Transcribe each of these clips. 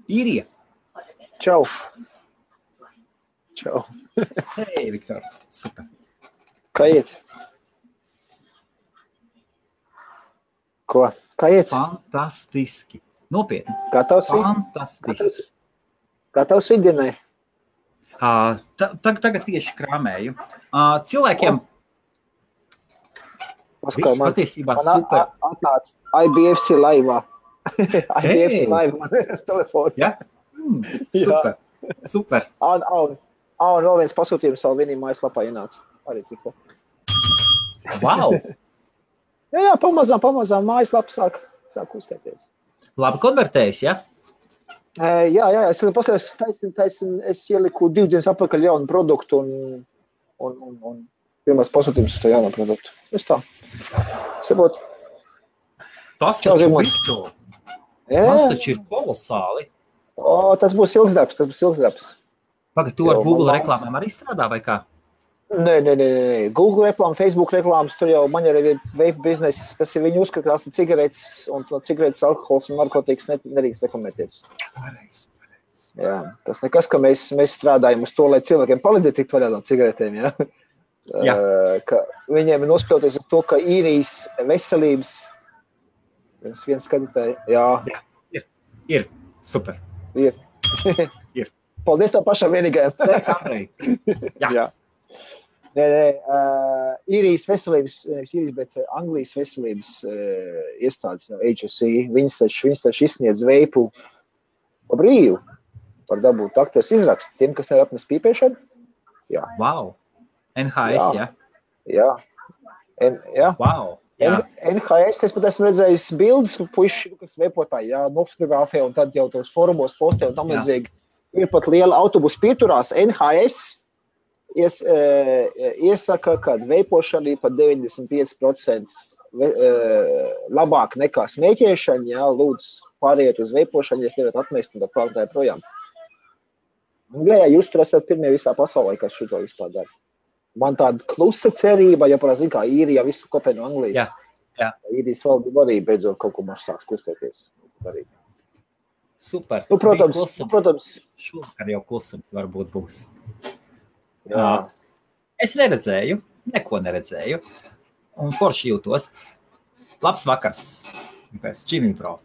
Īrija. Čau. Čau. Hei, Viktor. Super. Kā iet? Ko? Kā iet? Fantastiski. Nopietni. Gatavs? Fantastiski. Gatavs viddienai? Tagad tieši krāmēju. Cilvēkiem viss patiesībā super. Atnāc IBFC laivā. IBFC laivā man ir uz telefonu. Ja? Super. Super. Un vēl viens pasūtījums savu vienī mājaslapā ienāca. Arī tikko. Wow! Jā, pamazām mājaslapa sāk uztēties. Labi konvertējis, ja? Jā, es paskatījos, es ieliku 2 dienas atpakaļ jaunu produktu un pirmās pasūtījums uz to jaunu produktu. Es tā. Sabot. Tas taču, Viktor. Tas taču ir kolosāli. Tas būs ilgs darbs. Pagad, tu ar Google reklāmām arī strādā vai kā? Nē. Google reklāma, Facebook reklāmas, tur jau man arī ir vape bizness, tas ir viņi uzskata, ka cigaretes un cigaretes alkohols un narkotikas nedrīkst reklamēties. Pareizi. Jā, tas nekas, ka mēs strādājam uz to, lai cilvēkiem palīdzētu tikt vaļā no cigaretēm, ja? Jā. Ka viņiem ir nospļauties uz to, ka Īrijas veselības viens skatītāji, jā. Ir. Super. Ir. Paldies tev pašam vienīgajam. Sveiks, Andrej. Jā. Nē. Īrijas veselības, bet Anglijas veselības iestādes, HSE, viņas taču izsniedz veipu pa brīvu par dabūt aktos izrakstu tiem, kas ir apnes pīpēšanu. Jā. Wow. NHS, ja? Jā. Jā. Wow. Jā. NHS, es pat esmu redzējis bildes, puiši, kas veipotāji, jā, nofotografē un tad jau tos forumos postē un tam līdzīgi. Ir pat liela autobusu pieturās. NHS iesaka, ka veipošana ir pat 95% labāk nekā smēķēšana, jā, lūdzu pāriet uz veipošanu, ja nevarat atmest un tā pārtāja projām. Anglijā jūs tur esat pirmie visā pasaulē, kas šito vispār dara. Man tāda klusa cerība, ja parasti kā Īrija visu kopē no Anglijas. Jā. Īrijas valdība arī beidzot kaut ko maš sāks kustēties. Super. Protams. Šovakar jau klusums varbūt būs. Jā. Es neko neredzēju. Un forši jūtos. Labs vakars. Jimmy Pro.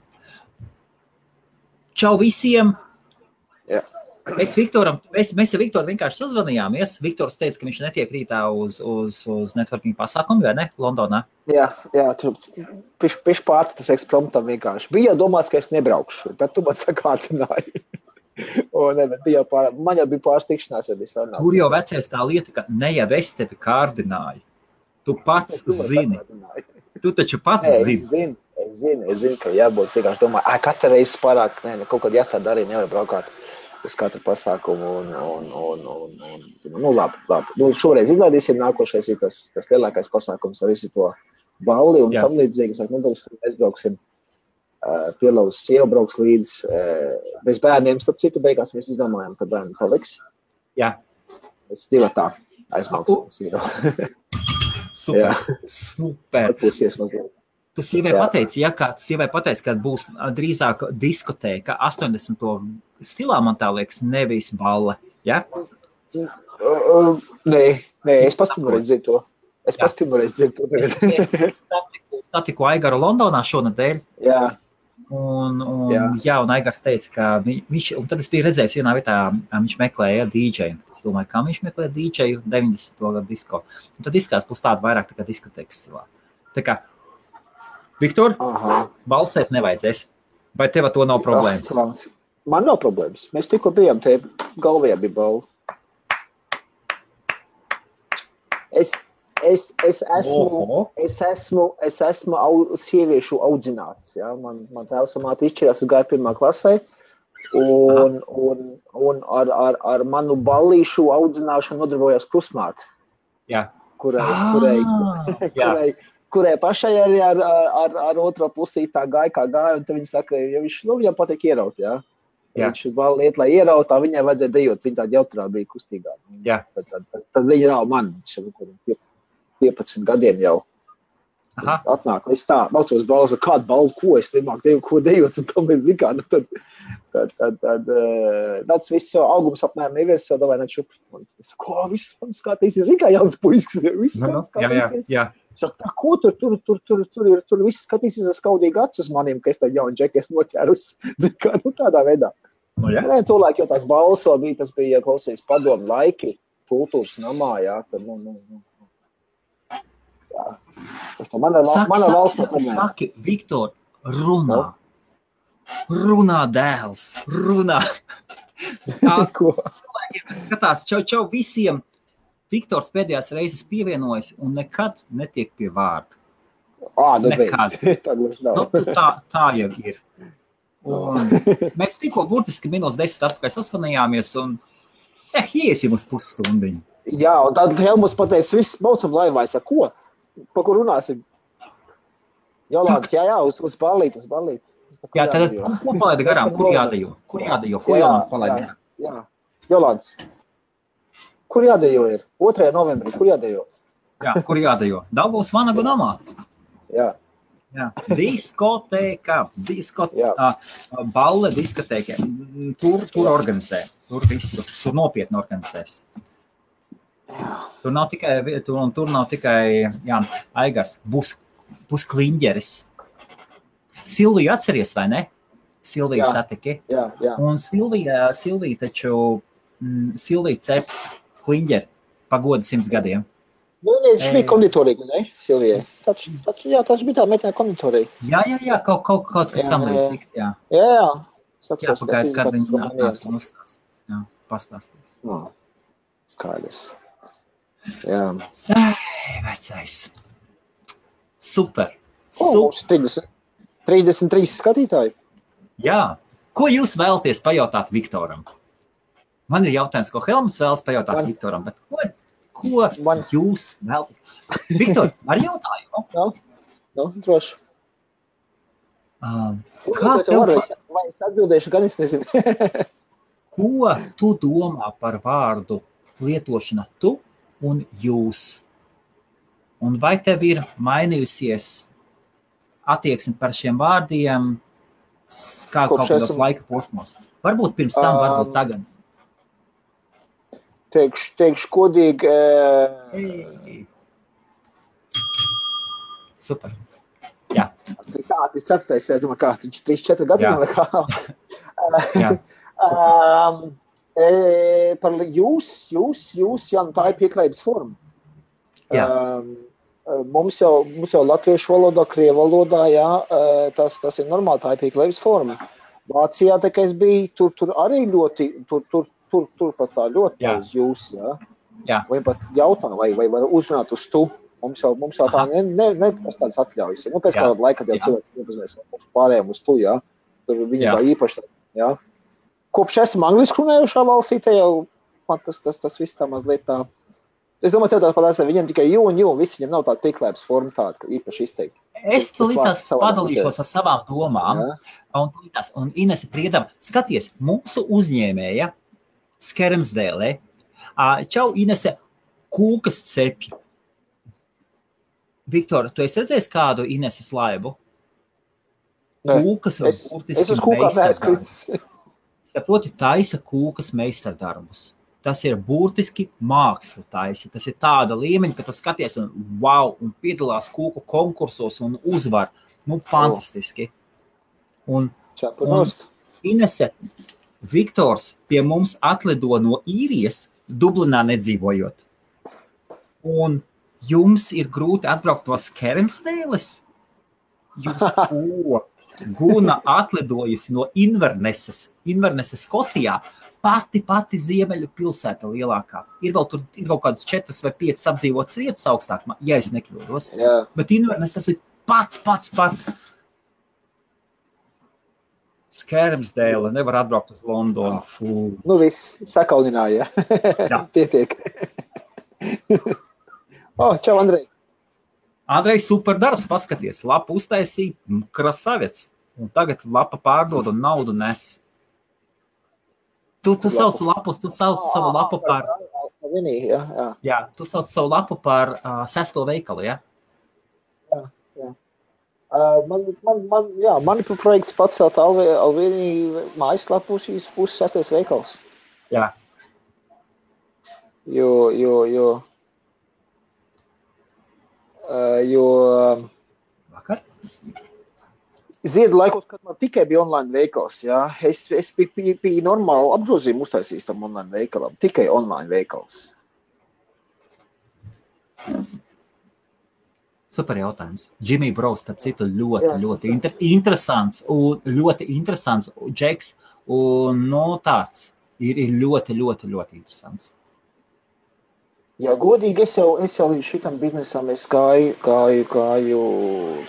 Čau visiem. Jā. Mēs ar Viktoru vienkārši sazvanījāmies. Viktors teica, ka viņš netiek rītā uz networking pasākumu, vai ne? Londonā. Jā, tur piš pārti tas ekspromptam vienkārši. Bija jau domāts, ka es nebraukšu, tad tu man sakātināji. Man jau bija pāris tikšanās, ja bija sarunās. Tur jau vecais tā lieta, ka ne jau es tevi kārdināju. Tu pats zini. Tu taču pats zini. Es zinu, ka jābūt vienkārši domāju, katra reize pārāk, kaut kad jāsāda arī nevar braukāt uz katru pasākumu un labi. Šoreiz izlaidīsim, nākošais ir tas lielākais pasākums ar visu to balli un tam līdzīgi. Mēs brauksim, Pielaus sieva brauks līdz bez bērniem, starp citu beigās mēs izdomājam, ka bērni paliks. Jā. Mēs divatā aizbrauksim. Super. Tu sievai pateici, ka būs drīzāk diskotēka 80. stilā, man tā liekas, nevis balle, ja? Nē, es pats pirmoreiz dzirdu to. Es satiku Aigaru Londonā šonadēļ. Jā. Un Aigars teica, ka viņš, un tad es biju redzējis vienā vietā, viņš meklēja DJ-u. Es domāju, kā viņš meklēja DJ-u 90. gadu disko. Un tad izskās būs tāda vairāk tā kā diskotēkas stilā. Tā kā, Viktor, balsēt nevajadzēs. Vai tev to nav problēmas? Man nav problēmas. Mēs tikko bijām, te galvajā bija balva. Es esmu sieviešu audzināts. Ja? Man tēvs un māte izšķirās, es gāju 1. klasē. Un ar manu ballīšu audzināšanu nodarbojās krustmāte. Jā. Kurai pašai arī ar otro pusī tā gāja, kā gāja, un tad viņi saka, ja viņam patīk ieraut, jā. Viņš liet, lai ierautā, viņai vajadzēja dejot, viņa tāda jautrā bija kustīgā. Jā. Tad viņa rāva man, 15 gadiem jau. Atnāk, es tā, maucos balzu, kādu balvu, ko es nemāku dejot, un to mēs zikā, tad tāds viss jau augums apmēram ievies, jau davai nečup. Es saku, ko, viss man skatīsies, zin kā jauns puisks, viss man skatīsies. Jā. Saku, tā, ko tur viss skatīsies ar skaudīgi acis manim, ka es tā jaunu džeku es noķērus, zin kā, tādā veidā. Nē, tolaik jau tās balso bija, tas bija, ja klausīs padomu laiki, kultūras namā, jā, tad, jā. Mana valsts Saki, Viktor, runā dēls, runā. Cilvēkiem skatās, čau visiem. Viktors pēdējās reizes pievienojas un nekad netiek pie vārda. Nekad. Tā jau ir. Un mēs tikko burtiski -10 atpakaļ sasvanījāmies un iesim uz pusstundiņu. Jā, un tad Helmuts pateica, viss baucam laivā, es saku, ko? Pa kur runāsim? Jolāns, jā, uz ballīt. Jā, tad ko palaida garām? Kur jādejo? Ko Jolāns palaida garām? Jā, Jolāns. Kur jādejo ir? 2. novembrī, kur jādejo? Jā, kur jādejo? Daugavas Vanagu namā. Jā. Diskotēka, balle diskotēka. Tur organizē, tur visu, tur nopietni organizēs. Tur nav tikai jā, Aigars, būs kliņģeris. Silviju atceries, vai ne? Silviju satiki. Jā. Un Silvija taču, Silvija ceps kliņģeri pagoda 100 gadiem. Viņš bija konditorīgi, ne, Silvijai? Taču bija tā meitene konditorīgi. Jā, kaut kas tam līdzīgs, jā. Jā. Pagaid, kad viņi nāks un uzstāsīs. Jā, pastāstīs. Skaidrs. Jā. Vecais. Super. Mums ir 33 skatītāji. Jā. Ko jūs vēlaties pajautāt Viktoram? Man ir jautājums, ko Helmuts vēlas pajautāt Viktoram, bet ko jūs vēlaties? Viktor, ar jautājumu? Jā, droši. Vai es atbildēšu, gan es nezinu. Ko tu domā par vārdu lietošana tu un jūs? Un vai tev ir mainījusies attieksme par šiem vārdiem kā kaut kādos laika posmos? Varbūt pirms tam, varbūt tagad. Teikšu kodīgi. Super. Jā. Tas ceturtais, es domāju, kā 3-4 gadiem vai kā. Jā. Par jūs, jā, tā ir pieklājības forma. Jā. Mums jau latviešu valodā, krievu valodā, jā, tas ir normāli, tā ir pieklājības forma. Vācijā, tā kā es biju, tur arī ļoti, tur pat tā ļoti uz jūs, jā. Jā. Vai pat jautā, vai var uzrunāt uz tu. Mums jau tā tas tāds atļaujas. Pēc kādā laika jau cilvēki iepazinās pārējiem uz tu, jā. Tur viņi vai īpaši, jā. Kopš esam angliski runājušā valstī, te jau man tas viss tā mazliet tā. Es domāju, tev tāda padās, viņiem tikai jū, visi viņiem nav tāda pieklājības forma tāda, ka īpaši izteikti. Es tulītās padalīšos ar savām domām, un Inese priedzam, skaties, mūsu uzņēmēja Skermsdēlē, čau Inese, kūkas cepļi. Viktor, tu esi redzējis kādu Ineses laivu? Kūkas vai burtiski meistardarbus. Saproti, taisa kūkas meistardarbus. Tas ir burtiski māksla taisa. Tas ir tāda līmeņa, ka tu skaties un piedalās kūku konkursos un uzvar. Fantastiski. Un Inese, Viktors pie mums atlido no Īrijas, Dublinā nedzīvojot. Un jums ir grūti atbraukt no Skermsdēles? Jūs Guna atlidojusi no Inverneses Skotijā, pati ziemeļu pilsēta lielākā. Ir vēl tur kaut kādas 4 vai 5 apdzīvotas vietas augstāk, ja es nekļūdos. Jā. Bet Inverneses ir pats. Skermsdēle, nevar atbraukt uz Londonu. Viss, sakaunināja. Jā. Pietiek. Čau, Andrej. Andrej, super darbs, paskaties. Lapa uztaisīja, krasavets. Un tagad lapa pārdod un naudu nes. Tu sauc lapus, tu sauc savu lapu par... Jā, tu sauc savu lapu par 6. veikalu, jā? Jā. Mani projekts pacelt Alvīnī mājaslapu šīs puses 6. veikals. Jā. Jo Vakar? Ziedu laikos, kad man tikai bija online veikals, jā, es biju normāli apgrozījumu uztaisījis tam online veikalam, tikai online veikals. Super jautājums. Jimmy Bros, starp citu, ļoti interesants un ļoti interesants džeks un tāds ir ļoti interesants. Jā, godīgi, es jau līdz šitam biznesam es gāju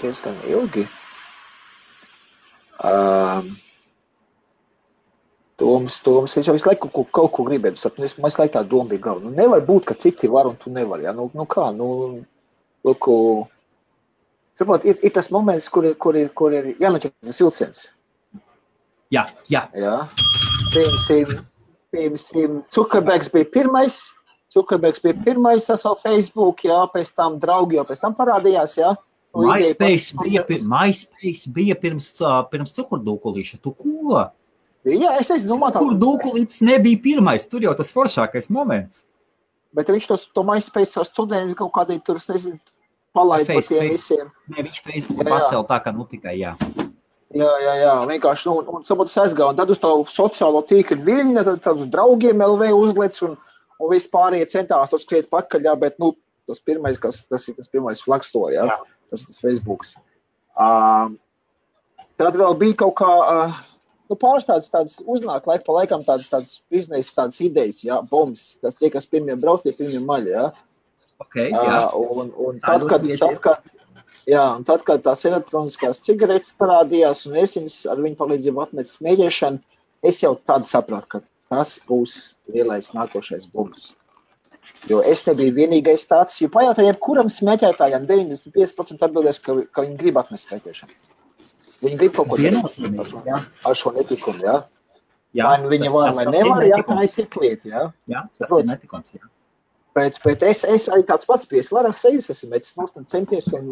diezgan ilgi. Toms, es jau visu laiku kaut ko gribētu sapni, man visu laiku tā doma bija galva. Nevar būt, ka citi var un tu nevar, jā, kā, saprot, ir tas moments, kur ir jānoķer tas vilciens. Jā. Piemēram, Zuckerbergs bija pirmais ar savu Facebook, jā, pēc tam draugi jau pēc tam parādījās, jā. MySpace bija pirms cukurdūkulīša. Tu ko? Jā, es domāju, cukurdūkulītis nebija pirmais, tur jau tas foršākais moments. Bet viņš to MySpace ar studenti kaut kādī tur, es nezinu, palaid par tiem visiem. Ne, viņš Facebook pacēl tā, ka tikai jā. Jā, vienkārši, un sabūt es aizgāju, un tad uz to sociālo tīkli viļņa, tad uz draugiem LV uzlec, un vispārējie centās to skriet pakaļ, jā, bet, tas pirmais, tas ir tas pirmais flagstore, jā, tas ir tas Facebooks. Tad vēl bija kaut kā, pāris tādas uznāk laika pa laikam tādas biznesa, tādas idejas, jā, bombs, tas tie, kas pirmie brauc, tie pirmie maļi, jā. Okay, jā. Un tad, kad tās elektroniskās cigaretes parādījās un es viņas ar viņu palīdzību atmetu smēķēšanu, es jau tādu sapratu, ka tas būs lielais nākošais bums. Jo es nebiju vienīgais tāds, jo pajautā jebkuram smēķētājam 95% atbildēs, ka viņi grib atmest smēķēšanu. Viņi grib kaut ko darīt ar šo netikumu, jā. Vai viņi var, vai nevar, jā, tā ir cita lieta, jā. Jā, tas ir netikums, jā. Bet es arī tāds pats bijis, vairākas reizes esmu mēģis centies, un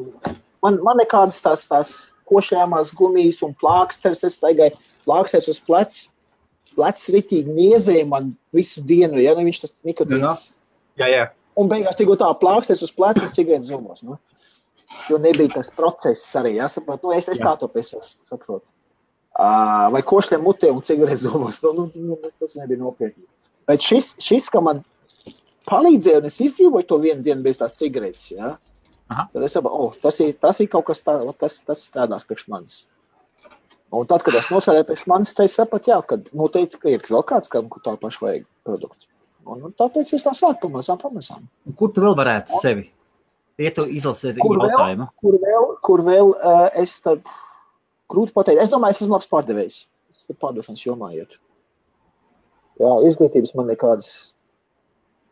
man nekādas tās košējāmās gumijas un plāksters, es taigāju plāksters uz plecs ritīgi niezēja man visu dienu, ja, viņš tas nikotīns. Jā. Un beigās tikko tā plāksters uz pleca un cigaretes zumos, Jo nebija tas process arī, jā, saprot, es tā to pēc saprotu. Vai košļiem mutē un cigaretes zumos, tas nebija nopietni. Bet šis, ka man palīdzēja, un es izdzīvoju to vienu dienu bez tās cigaretes, jā. Tad es saprotu, tas ir kaut kas tas strādās priekš manis. Un tad, kad es nosēdēju priekš manis, tad es sapratu, jā, kad noteikti, ka ir vēl kāds, kam tā paši vajag produktu. Un tāpēc es tā sāku pamazām. Kur tu vēl varētu sevi? Tu izlasiet jautājumu. Kur vēl es tad grūti pateikt. Es domāju, es esmu labs pārdevējs. Es pārdošanas jomā iet. Jā, izglītības man nekādas.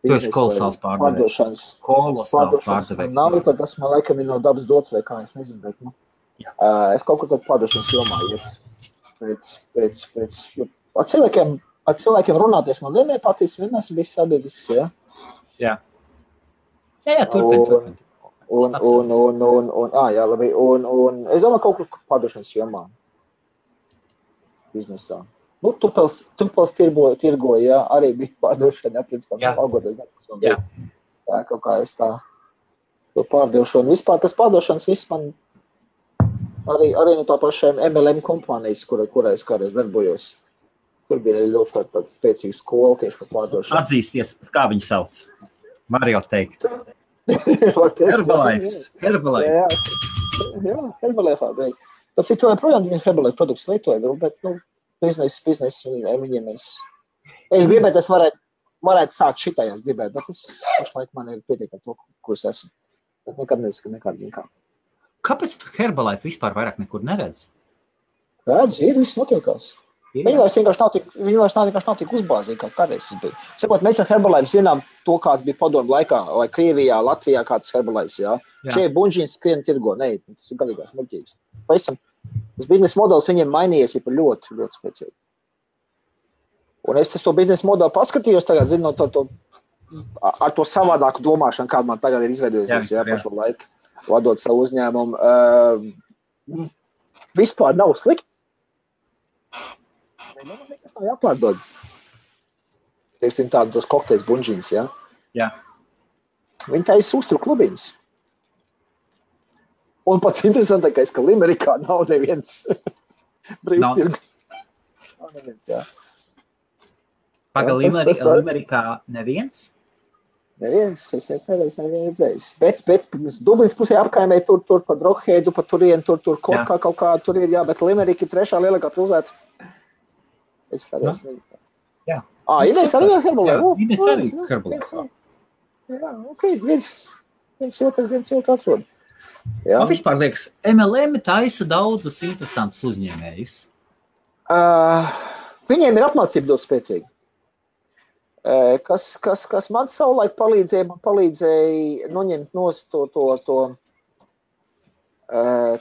Tu esi kolosāls pārdevējs. Kolosāls pārdevējs. Nav, tad tas man laikam ir no dabas dots vai kā, es nezinu, bet, es kaut ko tad pārdošanas jomā iet. Jo ar cilvēkiem runāties man vienmēr patīk, vienmēr esmu bijis sabiedrisks, jā. Jā, turpin. Labi, un es domāju kaut kur pārdošanas jomā. Biznesā. Tupels tirgoja, jā, arī bija pārdošana, pirms tam algoties, jā, kaut kā es tā to pārdošu. Un vispār tas pārdošanas viss man arī no tā pašiem MLM kompānijas, kurā es kādreiz darbojos. Tur bija ļoti tāda spēcīga skola tieši par pārdošanu. Atzīsties, kā viņi sauc? Var jau teikt. Herbalife. Jā, Herbalife. Tāpēc to joprojām viņi Herbalife produktus lietoja, bet, biznesa viņiem es gribētu, es varētu sākt šitai, es gribētu, bet es pašlaik man ir pietiekami to, ko es esmu. Bet nekad nesaku nekādu vienkā. Kāpēc Herbalife vispār vairāk nekur neredz? Redz, viss notiekās. Viņi vairs vienkārši nav tik uzbāzīgi, kā kādreiz es biju. Sakot, mēs ar Herbalife zinām to, kāds bija padomu laikā, vai Krievijā, Latvijā kāds Herbalife, jā. Šeit buņģiņas skrien tirgo, tas ir galīgās muļķības. Tas biznesa modelis viņiem mainījies ir ļoti, ļoti spēcīgi. Un es to biznesa modeli paskatījos tagad, zinu, ar to savādāku domāšanu, kāda man tagad ir izveidojusies, pašu laiku, vadot savu uzņēmumu. vispār nav slikts. Man nekas nav jāpārdod. Teiksim tos kokteļus bunžīnas, ja? Jā. Viņi taisa uzturu klubiņus. Un pats interesantākais, ka Limerikā nav neviens brīvstirgus. Nav neviens, jā. Paga Limerikā neviens? Neviens, es nevienu redzējis. Bet Dublinas pusē apkaimē tur pa Drogheidu, pa turien, tur Korkā kaut kā tur ir, jā, bet Limerika ir 3. lielākā pilsēta. Es arī esmu. Jā. Ines arī Herbolē? Ines arī Herbolē. Jā, ok, viens otru atrod. Man vispār liekas, MLM taisa daudzus interesantus uzņēmējus. Viņiem ir apmācība ļoti spēcīga. Kas man savulaik palīdzēja noņemt nost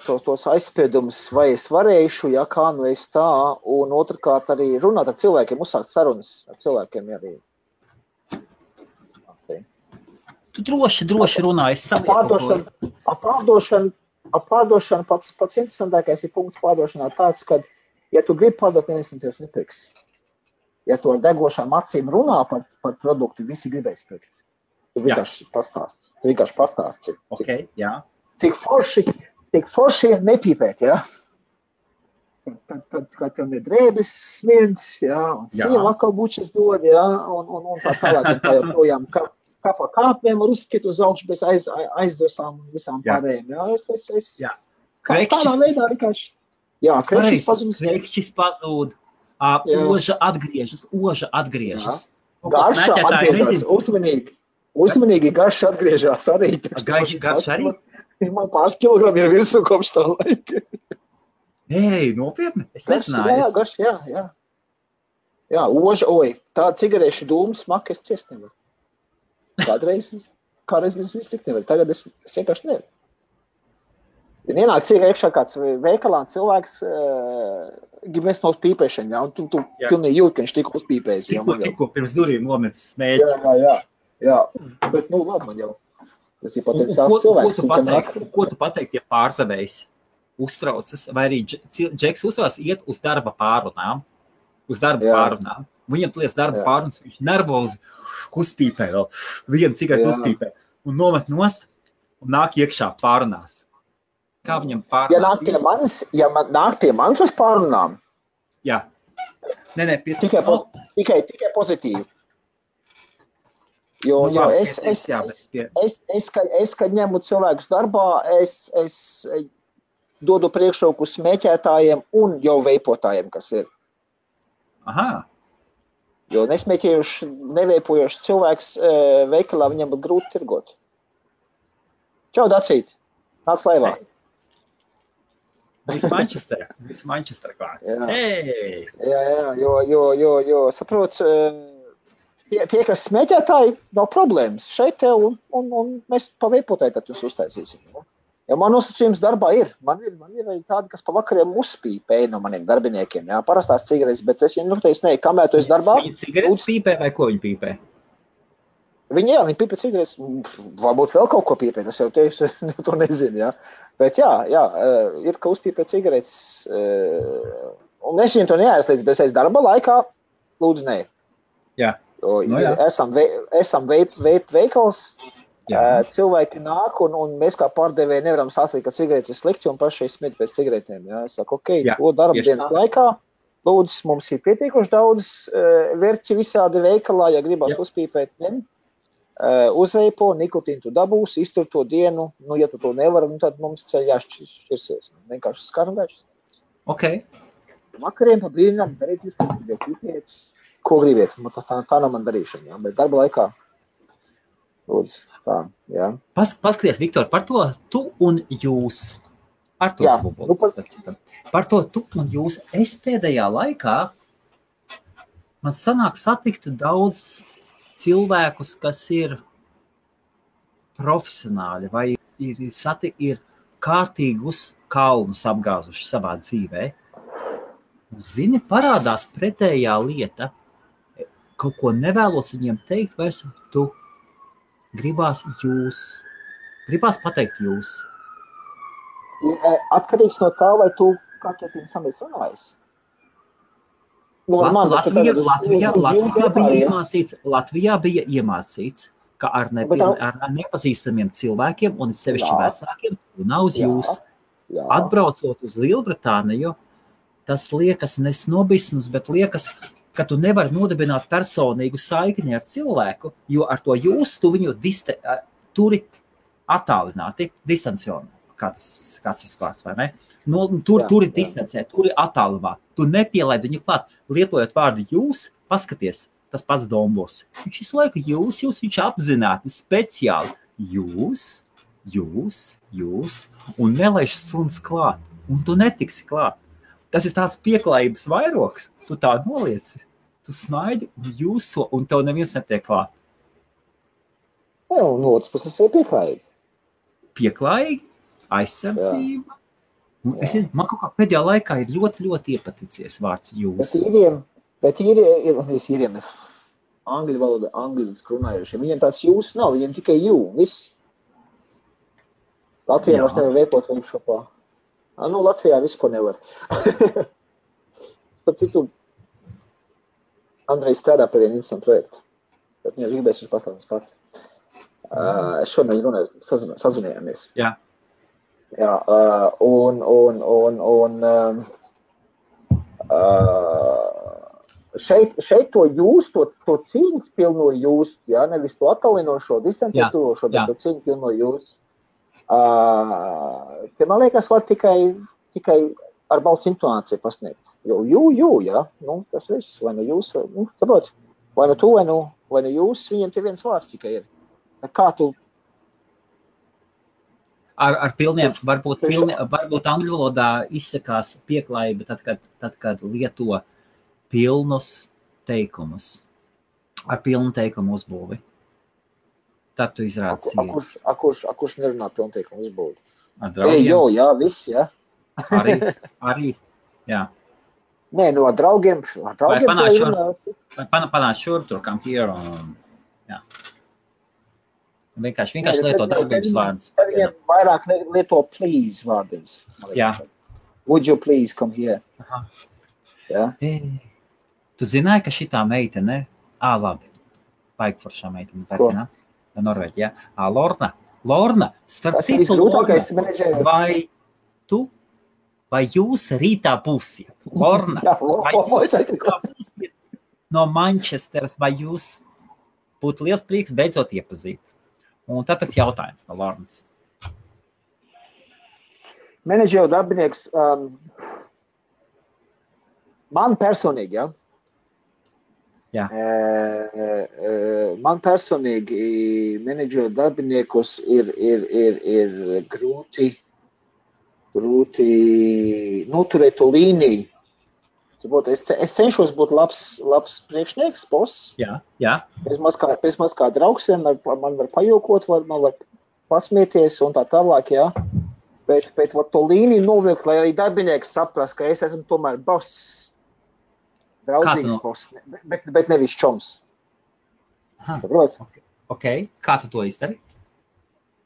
tos aizspiedumus, vai es varēšu, ja kā nu es tā, un otrkārt arī runāt ar cilvēkiem, uzsākt sarunas ar cilvēkiem arī. Tu droši runā, es savietoju. Pārdošana pats interesantākais ir punkts pārdošanā tāds, ka, ja tu gribi pārdot, neviens tev nepirks. Ja tu ar degošām acīm runā par produktu, visi gribēs pirkt. Tu vienkārši pastāsti. Okay, jā. Cik forši nepīpēt, ja? Kad tev ir drēbes smirds, ja? Un sieva atkal bučas dod, ja? Un tā tālāk, un tā joprojām kā pa kāpnēm var uzskriet uz augšu bez aizdosām un visām pārējiem, ja? Tādā veidā vienkārši. Jā, Krekšķis pazūd. Oža atgriežas. Garša atgriežas, uzmanīgi garša atgriežas arī. Garša arī? Man pāris kilogrami ir virsū kopš tā laika. Ei, nopietni? Es nezināju. Jā, garša, jā. Jā, oža, tā cigarešu dūmu smaku es ciest nevaru. Kādreiz mēs iztikt nevaru, tagad es vienkārši nevaru. Ja ienāk iekšā kāds veikalā cilvēks grib mest no pīpēšana, ja? Un tu pilnīgi jūti, ka viņš tikko uzpīpējas. Tikko pirms durīm nometis smēķi. Jā. Bet, labi man jau. Tas ir potenciāls cilvēks. Ko tu pateikt, ja pārdevējs uztraucas, vai arī Džeks uztraucas iet uz darba pārrunām? Viņam plies darba pārrunas, viņš nervozi uzpīpē vēl. Vienu cigaretu uzpīpē. Un nomet nost un nāk iekšā pārrunās. Kā viņam pārunās? Ja nāk pie manis uz pārunām? Jā. Tikai pozitīvi. Jo es, kad ņemu cilvēkus darbā, es dodu priekšroku smēķētājiem un jau veipotājiem, kas ir. Aha. Jo nesmēķējuši, neveipojuši cilvēks veikalā, viņam būtu grūti tirgot. Čau, Dacīt! Nāc laivā! Viss Manchester klāts. Hey! Jā, jo, saprot, tie, kas smēķētāji, nav problēmas. Šeit tev un mēs pa veipotāji tad jūs uztaisīsim. Ja man nosacījums darbā ir. Man ir arī tādi, kas pa vakariem uzpīpēja no maniem darbiniekiem. Jā, parastās cigaretes, bet es viņiem noteicu, kamēr tu esi darbā. Viņi cigaretes pīpē vai ko viņi pīpē? Viņi pīpē cigaretes, varbūt vēl kaut ko pīpē, tas jau tevis to nezinu, jā. Bet jā, ir, ka uzpīpē cigaretes, un es viņiem to neaizliedzu, bet es darba laikā lūdzu nē. Jā. Esam veikals, cilvēki nāk, un mēs kā pārdevēji nevaram stāstīt, ka cigaretes ir slikti, un paši smīt pēc cigaretēm, jā. Es saku, to darba dienas laikā, lūdzu, mums ir pietiekuši daudz verķi visādi veikalā, ja gribas uzpīpēt, ņem. Uzveipo, nikotīnu tu dabūs, iztur to dienu, ja tu to nevari, tad mums ceļ jāšķirsies. Vienkārši skargāši. Ok. Vakariem pa brīnām darīt jūs, ko gribiet. Tā nav man darīšana, jā. Bet darba laikā, lūdzu, tā, jā. Paskaties, Viktor, par to tu un jūs. Arturs Bubols. Par to tu un jūs. Es pēdējā laikā man sanāk satikt daudz cilvēkus, kas ir profesionāļi vai ir kārtīgus kalnus apgāzuši savā dzīvē. Zini, parādās pretējā lieta. Kaut ko nevēlos viņiem teikt, vairs tu gribās pateikt jūs. Atkarīgs no tā, vai tu katru pirms tam esi runājis. Latvijā bija iemācīts, ka ar nepazīstamiem cilvēkiem un sevišķi vecākiem nav uz jūs. Atbraucot uz Lielbritāniju, tas liekas ne snobisms, bet liekas, ka tu nevari nodibināt personīgu saikni ar cilvēku, jo ar to jūs tu viņu turi attālināti, distancionāli. Kāds tas vārds, vai ne? Turi distancē, turi attālumā. Tu nepielaid viņu klāt. Lietojot vārdu jūs, paskaties, tas pats Dombos. Viņš visu laiku jūs, viņš apzināti, speciāli. Jūs, un nelaiž suns klāt. Un tu netiksi klāt. Tas ir tāds pieklājības vairoks. Tu tā nolieci. Tu smaidi un jūso, un tev neviens netiek klāt. Jā, un otrs puses ir pieklājīgi. Pieklājīgi? Aizsardzība. Man kaut kā pēdējā laikā ir ļoti, ļoti iepaticies vārds jūs. Bet īriem angļu valoda, angļu runājušiem. Viņiem tās jūs nav, viņiem tikai jū, viss. Latvijā var tevi veikot workshopā. Latvijā visu, ko nevar. Starp citu, Andrejs strādā pie vienu interesantu projektu. Bet viņš gribēs viņš pastāstīs pats. Šodien runāju, sazvanījāmies. Jā. Jā, šeit to jūs, to cīņas pilno jūs, jā, nevis to attālinošo, distancietošo, bet to cīņas pilno jūs. Te, man liekas, var tikai ar balss intonāciju pasniegt. Jo jā, tas viss, vai nu jūs, saprot, vai nu tu, vai nu jūs, viņiem te viens vārds tikai ir. Kā tu? Ar pilniem, varbūt angļu valodā izsakās pieklājība tad, kad lieto pilnus teikumus. Ar pilnu teikumu uzbūvi. Tad tu izrādi cīņu. Kurš nerunā pilnu teikumu uzbūvi? Ar draugiem? Jā, viss, jā. Arī, jā. Nē, ar draugiem. Vai panāc šur, tur kam here un, jā. Vienkārši lieto darbības vārdus. Tad viņiem vairāk lieto please vārdins. Jā. Would you please come here? Aha. Jā. Tu zināji, ka šitā meitene, labi, paikforšā meitene, Norvēģijā, Lorna, starp citu, vai jūs rītā būsiet? Lorna, vai jūs rītā būsiet no Manchesteras, vai jūs būtu liels prieks beidzot iepazīt? Un tāpēc jautājums no Lornas. Menedžera darbinieks, man personīgi, ja? Jā. Man personīgi menedžera darbiniekus ir grūti noturēt to līniju. Es cenšos būt labs priekšnieks, boss. Jā. Pēc maz kā draugs vienmēr man var pajokot, man var pasmieties un tā tālāk, jā. Bet to līniju novilkt, lai arī darbinieks saprast, ka es esmu tomēr boss. Draudzīgs boss, bet nevis čoms. Saprot? Ok. Kā tu to izdari?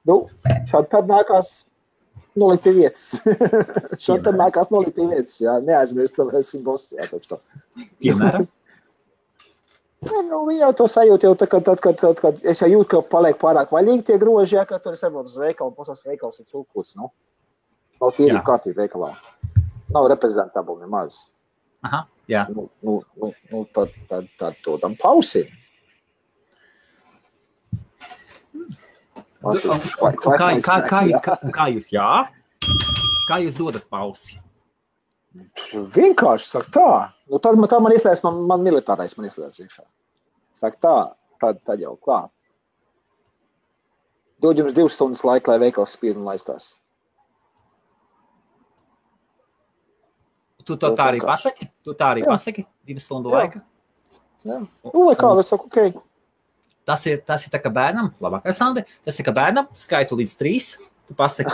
Šādi tad nākās nolikt pie vietas. Šādi tad nākās nolikt pie vietas, jā. Neaizmirst, ka esmu boss, jā, taču to. Piemēram? Viņi jau to sajūt, jau tad, kad es jau jūtu, ka paliek pārāk vaļīgi tie groži, jā, ka tur es varbūt uz veikalu, posās veikals ir cūkūts, Nav tīrība kārtība veikalā. Nav reprezentabli nemaz. Aha, jā. Tad to tam pausim. Kā jūs Kā jūs dodat pausi? Vienkārši saka tā. Tad man ieslēdz, man militārais man ieslēdz iekšā. Saka tā, tad jau klāt. Dod jums 2 stundas laika, lai veikals spīd un laistās. Tu tā arī pasaki? 2 stundu laika? Jā. Vai kā, es saku, ok. Tas ir tā kā bērnam, labākais Andi, tas ir kā bērnam, skaitu līdz 3, tu pasaki.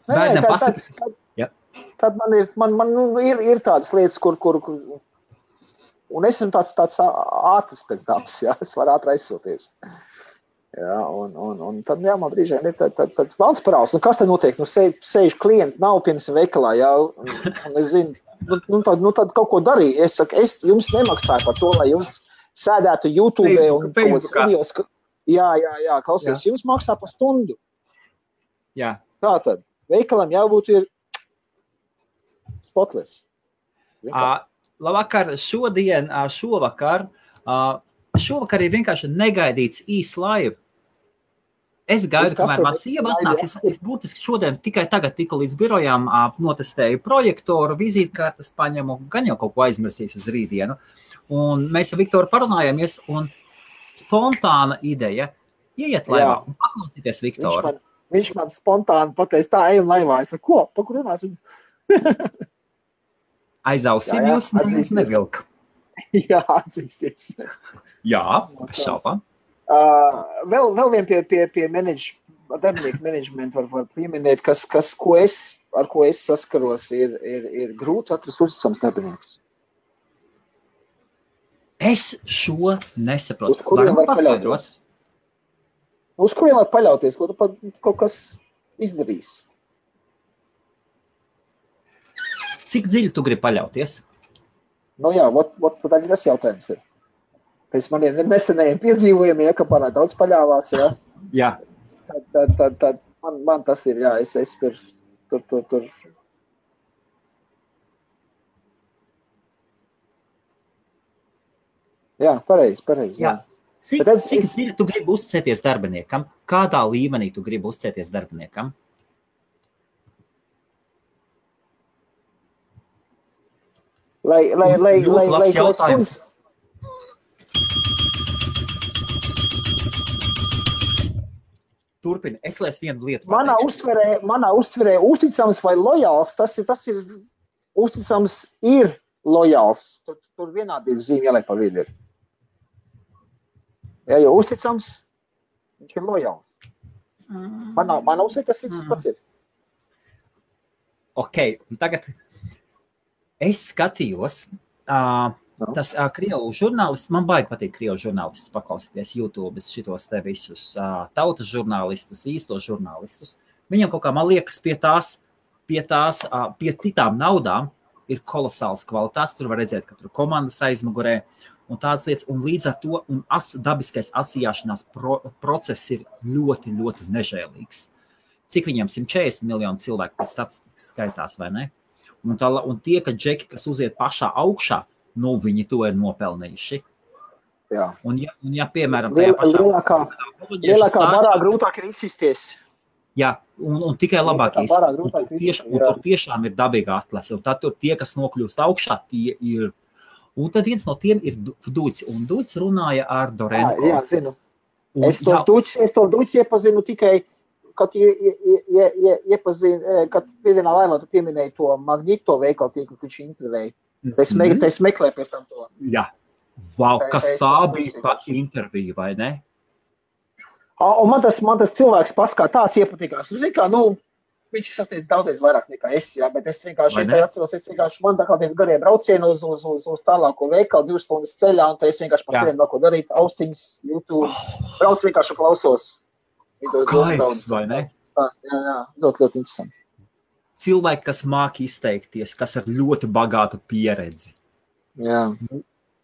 Bērnam pasaki. Tad man ir tādas lietas, kur un es esmu tāds ātrs pēc dabas, jā, es varu ātri aizsilties. Jā, un tad, jā, man brīžiem ir tad valsts parāds. Nu, kas te notiek? Nu, sēž klienti, nav pirms veikalā, jā, un es zinu, tad kaut ko darīju. Es saku, es jums nemaksāju par to, lai jūs sēdētu YouTube un videos. Jā, klausies, jums maksā par stundu. Jā. Tā tad, veikalam jābūt ir spotless. Labvakar, šovakar ir vienkārši negaidīts īs laiva. Es gaidu, kamēr man sieva atnāks. Es būtiski šodien tikai tagad tiku līdz birojām, notestēju projektoru, vizītkartes paņemu, gan jau kaut ko aizmirsīs uz rītdienu. Un mēs ar Viktoru parunājāmies, un spontāna ideja ieiet laivā un paklausīties Viktoru. Viņš man spontāni pateica, tā ejam laivā. Es saku, ko? Pa kur runāsim? Aizausim jūs, neviens nevilka. Jā, atzīsties. Jā, bez šaubām. Vēl vien pie darbinieku menedžmentu var pieminēt, ar ko es saskaros, ir grūti atrast uzticams darbinieks. Es šo nesaprotu. Uz kuriem var paļauties? Uz kuriem var paļauties, ko tu kaut kas izdarīs? Cik dziļi tu gribi paļauties? Nu jā, tad tas jautājums ir. Pēc maniem nesenajiem piedzīvojumiem, ka pārāk daudz paļāvās, jā. Jā. Tad man tas ir, jā, es tur. Jā, pareizi. Jā. Cik dziļi tu gribi uzticēties darbiniekam? Kādā līmenī tu gribi uzticēties darbiniekam? Lai jautājums. Turpini, es lēs vienu lietu. Manā uztverē uzticams vai lojāls, tas ir uzticams ir lojāls. Tur vienādības zīme jāliek pa vidu ir. Ja jau uzticams, viņš ir lojāls. Manā uztverē tas viss pats ir. Ok, un tagad es skatījos, tas krievu žurnālists, man baigi patīk krievu žurnālistus paklausīties YouTube, šitos te visus tautas žurnālistus, īstos žurnālistus. Viņam kaut kā, man liekas, pie citām naudām ir kolosāls kvalitātes. Tur var redzēt, ka tur komandas aizmugurē un tādas lietas. Un līdz ar to dabiskais atsījāšanās process ir ļoti, ļoti nežēlīgs. Cik viņam 140 miljonu cilvēku pēc statistikas skaitās, vai ne? Un tie, ka džeki, kas uziet pašā augšā, nu, viņi to ir nopelnījuši. Jā. Un ja piemēram, tajā pašā... Lielākā barā grūtāk ir izsisties. Jā, un tikai labāk izsisties. Un tur tiešām ir dabīga atlase. Un tad tur tie, kas nokļūst augšā, tie ir... Un tad viens no tiem ir Duits. Un Duits runāja ar Dorenko. Jā, zinu. Es to Duits iepazinu tikai, kad kad vienā laivā tu pieminēji to Magnito veikalu tīklu, kad viņš intervēja. Es meklēju pēc tam to. Jā. Wow, kas tā bija pa interviju, vai ne? Un man tas cilvēks pats kā tāds iepatīkās. Zini kā, viņš sasniedz daudzreiz vairāk nekā es, jā, bet es vienkārši atceros, man tā kā tie garie braucieni uz tālāko veikalu, 2 stundas ceļā, un tad es vienkārši pats vēl ko darīt, austiņas, YouTube, brauc vienkārši klausos. Kaips, vai ne? Jā, ļoti interesanti. Cilvēki, kas māk izteikties, kas ar ļoti bagātu pieredzi. Jā.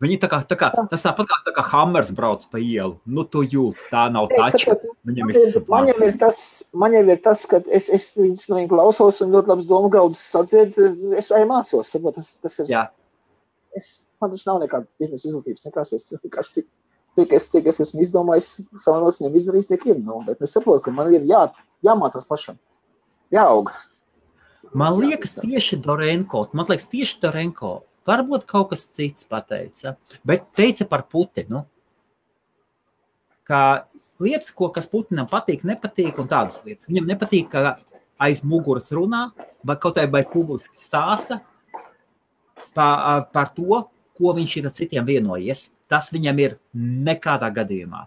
Viņi tas tāpat kā Hammers brauc pa ielu. Nu, tu jūt, tā nav taču. Viņam man jau ir tas, ka es viņus no viņu klausos un ļoti labs domu graudus sadzied, es vai mācos. Tas ir, jā. Man tas nav nekāda biznesa izglītības, nekās es vienkārši cik es esmu izdomājis, savā nosiņiem izdarījis, tiek ir. Bet es saprotu, ka man ir jāmācās pašam. Jāaug. Man liekas tieši Dorenko, varbūt kaut kas cits pateica, bet teica par Putinu, ka lietas, kas Putinam patīk, nepatīk un tādas lietas. Viņam nepatīk, ka aiz muguras runā, vai publiski stāsta par to, ko viņš ir ar citiem vienojies. Tas viņam ir nekādā gadījumā.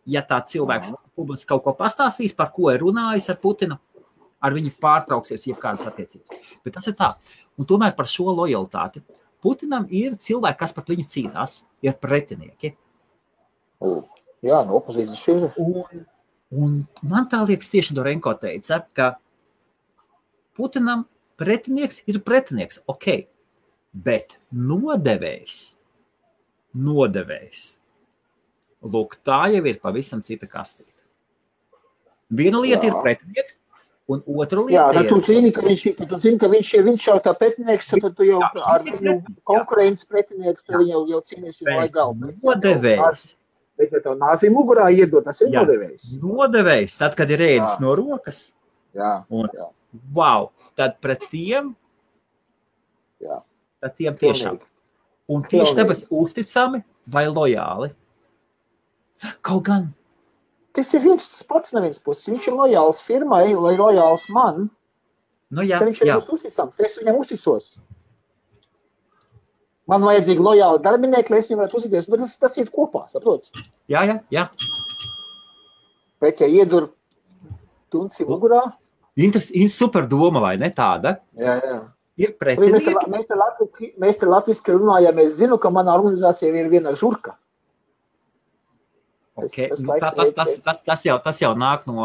Ja tā cilvēks publiski kaut ko pastāstīs, par ko ir runājis ar Putinu, ar viņu pārtrauksies jebkādas attiecības. Bet tas ir tā. Un tomēr par šo lojalitāti. Putinam ir cilvēki, kas par viņu cīnās, ir pretinieki. Jā, no opozīcijas šī. Un man tā liekas tieši Dorenko teica, ka Putinam pretinieks ir pretinieks, ok, bet nodevējs. Lūk, tā jau ir pavisam cita kastīte. Viena lieta ir pretinieks, un otra lieta ir... Jā, tu zini, ka viņš jau tā pretinieks, tad tu jau ar viņu konkurences pretinieks, tu viņu jau cīnies jau lai galvu. Nodevējs. Bet, ja tev nāzi mugurā iedod, tas ir nodevējs. Nodevējs, tad, kad ir ēdis no rokas. Jā. Wow, tad pret tiem, tad tiem tiešām. Un tieši tāpēc uzticami vai lojāli. Kaut gan. Tas ir tas pats no vienas puses. Viņš ir lojāls firmai, vai lojāls man. Nu jā, viņš ir uzticams. Es viņam uzticos. Man vajadzīgi lojāli darbinieki, lai es viņam varētu uzticēties, bet tas ir kopā, saprot? Jā. Bet, ja iedur tunci mugurā... Super doma, vai ne tāda? Jā. Ir pretinieki. Mēs te latviski runājam, es zinu, ka manā organizācijā ir viena žurka. Okay. Tas jau nāk no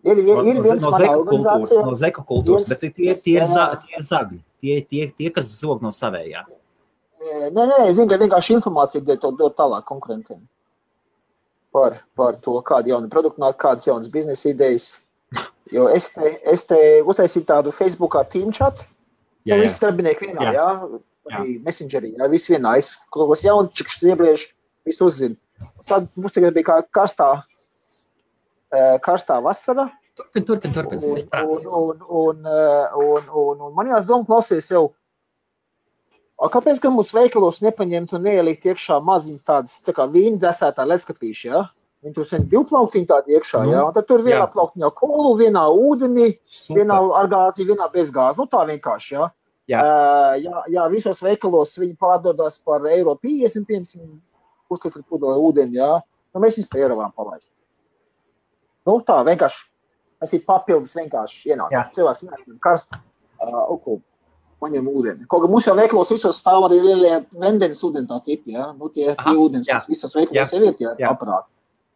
Ir viens manā organizācijā. No zeku kultūras, bet tie ir zagļi. Tie, kas zog no savējā. Nē, zinu, ka vienkārši informācija dod tālāk konkurentiem. Par to, kādi jauni produkti nāk, kādas jaunas biznesa idejas. Jo es te uztaisīju tādu Facebookā team chat. Visi darbinieki vienā, Messengerī, visi vienā. Es kaut kos jaunčikus iebriežu, visi uzzinu. Tad mums tagad bija kā karstā vasara. Turpin. Un man jāsdoma klausies jau. Kāpēc, ka mūsu veikalos nepaņemt un neielikt iekšā maziņas tādas, tā kā vīna dzēsētā ledskapīši, Viņi tur sen 2 plauktiņi tādi iekšā, Un tad tur vienā plauktiņā kolu, vienā ūdeni, vienā ar gāzi, vienā bez gāzi. Tā vienkārši, Jā, visos veikalos viņi pārdodās par €1,50, piemēram, uzskatīt pudoja ūdeni, Mēs viņus par €1 palaist. Tā vienkārši, tas ir papildus vienkārši ienāk. Cilvēks vienkārši karst, paņem ūdeni. Kaut kā mums jau veikalos visos stāv arī lielie vendenes ūdeni tā tipi, Tie ūdens, visos veikalos jau ir tie aparāti.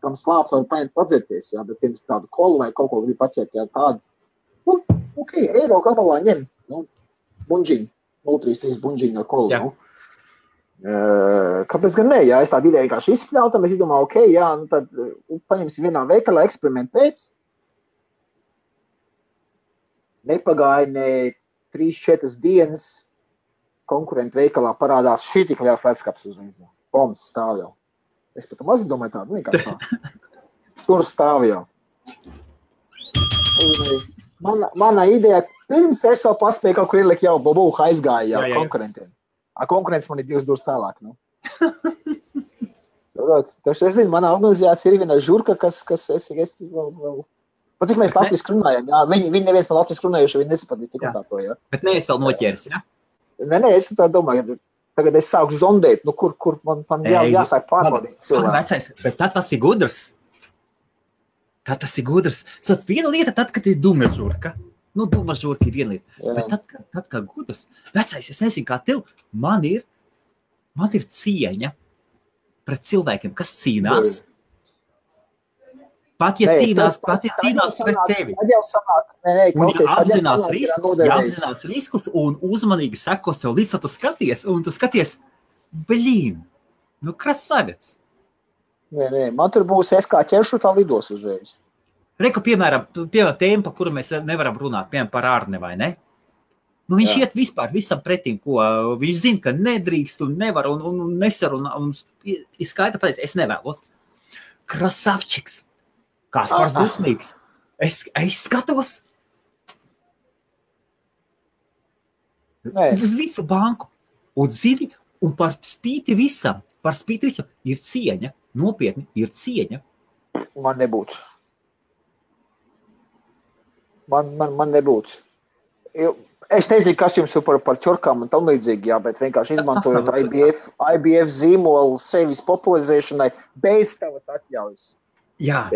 Kam slāpt var paņemt padzerties, bet pirms tādu kolu vai kaut ko grib paķert, tādu. Eiro gabalā ņem, bunģiņu, 0,33 bunģiņu no kolu, Kāpēc gan ne, es tādu ideju vienkārši izspļauju, tad mēs izdomāju, tad paņemsim vienā veikalā eksperimentu pēc. Nepagāja ne 3-4 dienas konkurentu veikalā parādās šī tik liels ledskaps uz viņas. Bombas stāv jau. Es pat maz domāju tādu, vienkārši tā. Tur stāv jau. Mana ideja, pirms es vēl paspēju kaut kur ielikt jau bobuha aizgāja jau konkurentiem. Konkurents man ir 2 durus tālāk, Taču es zinu, manā organizācijā ir viena žurka, kas es vēl... Pat cik mēs latviski runājam, viņi neviens no latviski runājuši, viņi nesapratīs tik un tā to, Bet neesi vēl noķēris, Nē, es tā domāju, tagad es sāku zondēt, kur man jāsāk pārbaudīt cilvēku. Bet tad tas ir gudrs. Sot, viena lieta tad, kad ir duma žurka. Duma žurka ir viena lieta. Bet tad kā gudrs. Vecais, es nezinu, kā tev, man ir cieņa pret cilvēkiem, kas cīnās. Pat ja cīnās pret tevi. Un apzinās riskus un uzmanīgi sekos tev līdz, tu skaties, un tu skaties, krasavets. Nē, man tur būs es kā ķeršu, tā lidos uzreiz. Reku, piemēram, tēma, par kuru mēs nevaram runāt, piemēram, par Arni, vai ne? Viņš iet vispār visam pretīm, ko viņš zina, ka nedrīkst un nevar un nesarunā, un izskaita pateic, es nevēlos. Krasavčiks. Kaspars dusmīgs. Es skatos. Uz visu banku. Un zini, un par spīti visam ir cieņa. Nopietni ir cieņa. Man nebūtu. Man nebūtu. Es nezinu, kas jums par ķorkām un tam līdzīgi, bet vienkārši izmantojot IBF zīmolu sevis popularizēšanai bez tavas atļaujas. Jā.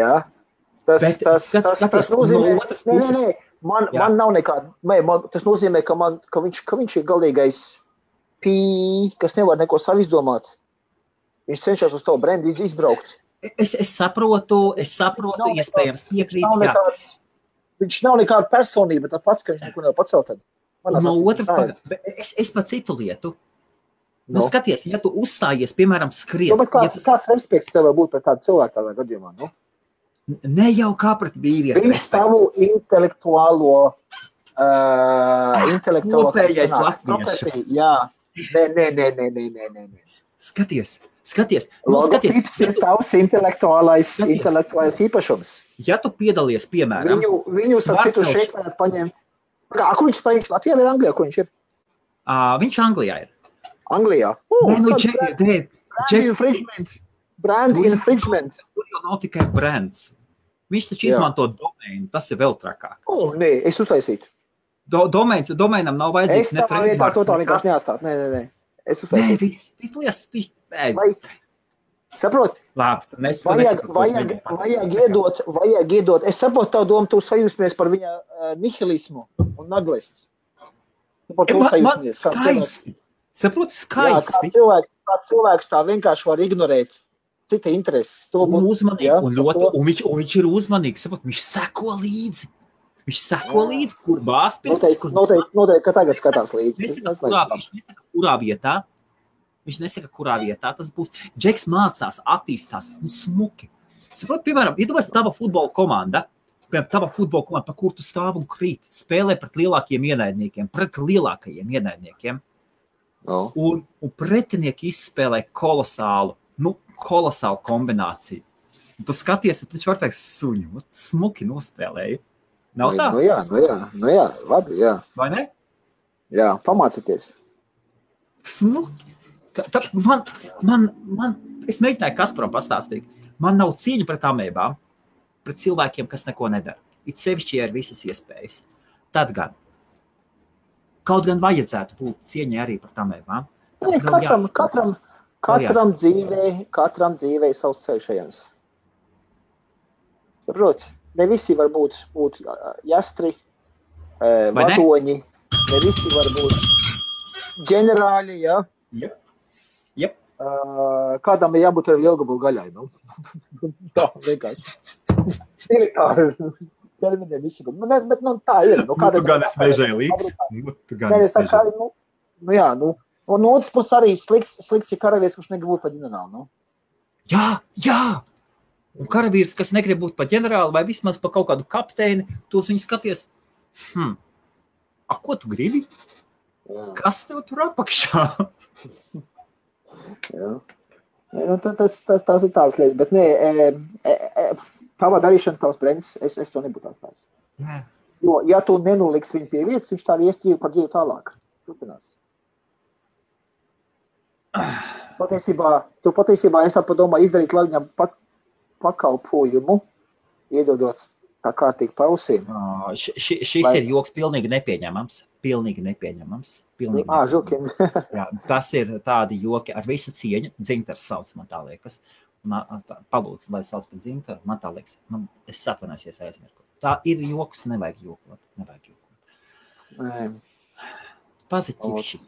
Tas nozīmē, man nav nekāda, tas nozīmē, ka viņš ir galīgais kas nevar neko savu izdomāt. Viņš cenšas uz to brendu izbraukt. Es saprotu, iespējams piekrīt, jā. Viņš nav nekāda personība, tā pats, ka viņš neko nevar pacelt. No otras puses, es pa citu lietu. Nu, skaties, ja tu uzstājies, piemēram, skriet. Bet kāds respekts tev būt pret tādu cilvēku tādā gadījumā, nu? Ne jau kā pret vīrieti. Viņš tavu intelektuālo kopējais latviešu. Jā. Nē. Skaties. Logotips ir tavs intelektuālais īpašums. Ja tu piedalies, piemēram... Viņu starp citu šeit varētu paņemt. Kur viņš paņems? Latvijā vai Anglijā? Kur viņš ir? Viņš Anglijā ir. Anglijā? Brand infringement. Tur jau nav tikai brands. Viņš taču izmanto domainu. Tas ir vēl trakāk. Nē, es uztaisītu. Domainam nav vajadzīgs ne trademarks. Es tā vienkārši neatstāt. Nē. Es uztaisītu. Nē, saprot? Labi, vajag iedot. Es saprotu tavu domu, tu sajūsmies par viņa nihilismu un naglists. Skaisti. Saproti, skaisti. Jā, kā cilvēks tā vienkārši var ignorēt cita intereses. Un uzmanīgi, un viņš ir uzmanīgs, saprot, viņš seko līdzi. Kur bāzpirkstis, kur... Noteikti, ka tagad skatās līdzi. Viņš nesaka, kurā vietā tas būs. Džeks mācās, attīstās un smuki. Saprot, piemēram, iedomājies tava futbola komanda, pa kur tu stāv un krīt, spēlē pret lielākajiem ienaidniekiem. Un pretinieki izspēlē kolosālu kombināciju. Un tu skaties, tu taču var teikt suņu, smuki nospēlēji. Nav tā? Nu jā, labi, jā. Vai ne? Jā, pamācieties. Smuki. Es mēģināju Kasparam pastāstīt. Man nav cieņa pret amēbām, pret cilvēkiem, kas neko nedara. It sevišķi ir visas iespējas. Tad gan. Kaut gan vajadzētu būt cieņai arī par amēbām. Katram dzīvē savs ceļš ejams. Saprot? Ne visi var būt jastri, vadoņi, ne visi var būt ģenerāļi, jā? Yep. Kādam ir jābūt ar lielgabalu gaļai, nu? Tā, vienkārši. Militāri. Bet, tā ir. Tu gan es nežēlīgs. Un otrs puses arī slikts ir karavīrs, kurš negrib būt par ģenerālu, nu? Jā! Un karavīrs, kas negrib būt par ģenerālu vai vismaz par kaut kādu kapteini, tos viņi skaties, ko tu gribi? Jā. Kas tev tur apakšā? Jā. Tas ir tāds lietas, bet tavā darīšana tavs brends, es to nebūtu atstājis. Jā. Jo, ja tu nenoliks viņu pie vietas, viņš tā iesķīvi pa dzīvi tālāk. Turpinās. Tu patiesībā es tā padomā izdarīt, lai viņam pakalpojumu, iedodot tā kārtīgi pausīm. Šis ir joks pilnīgi nepieņemams. Žukiem. Jā, tas ir tādi joki ar visu cieņu. Dzintars sauc, man tā liekas. Palūdzu, lai sauc par Dzintaru, man tā liekas. Es atvainosies aizmirku. Tā ir joks, nevajag jokot. Pozitīvi.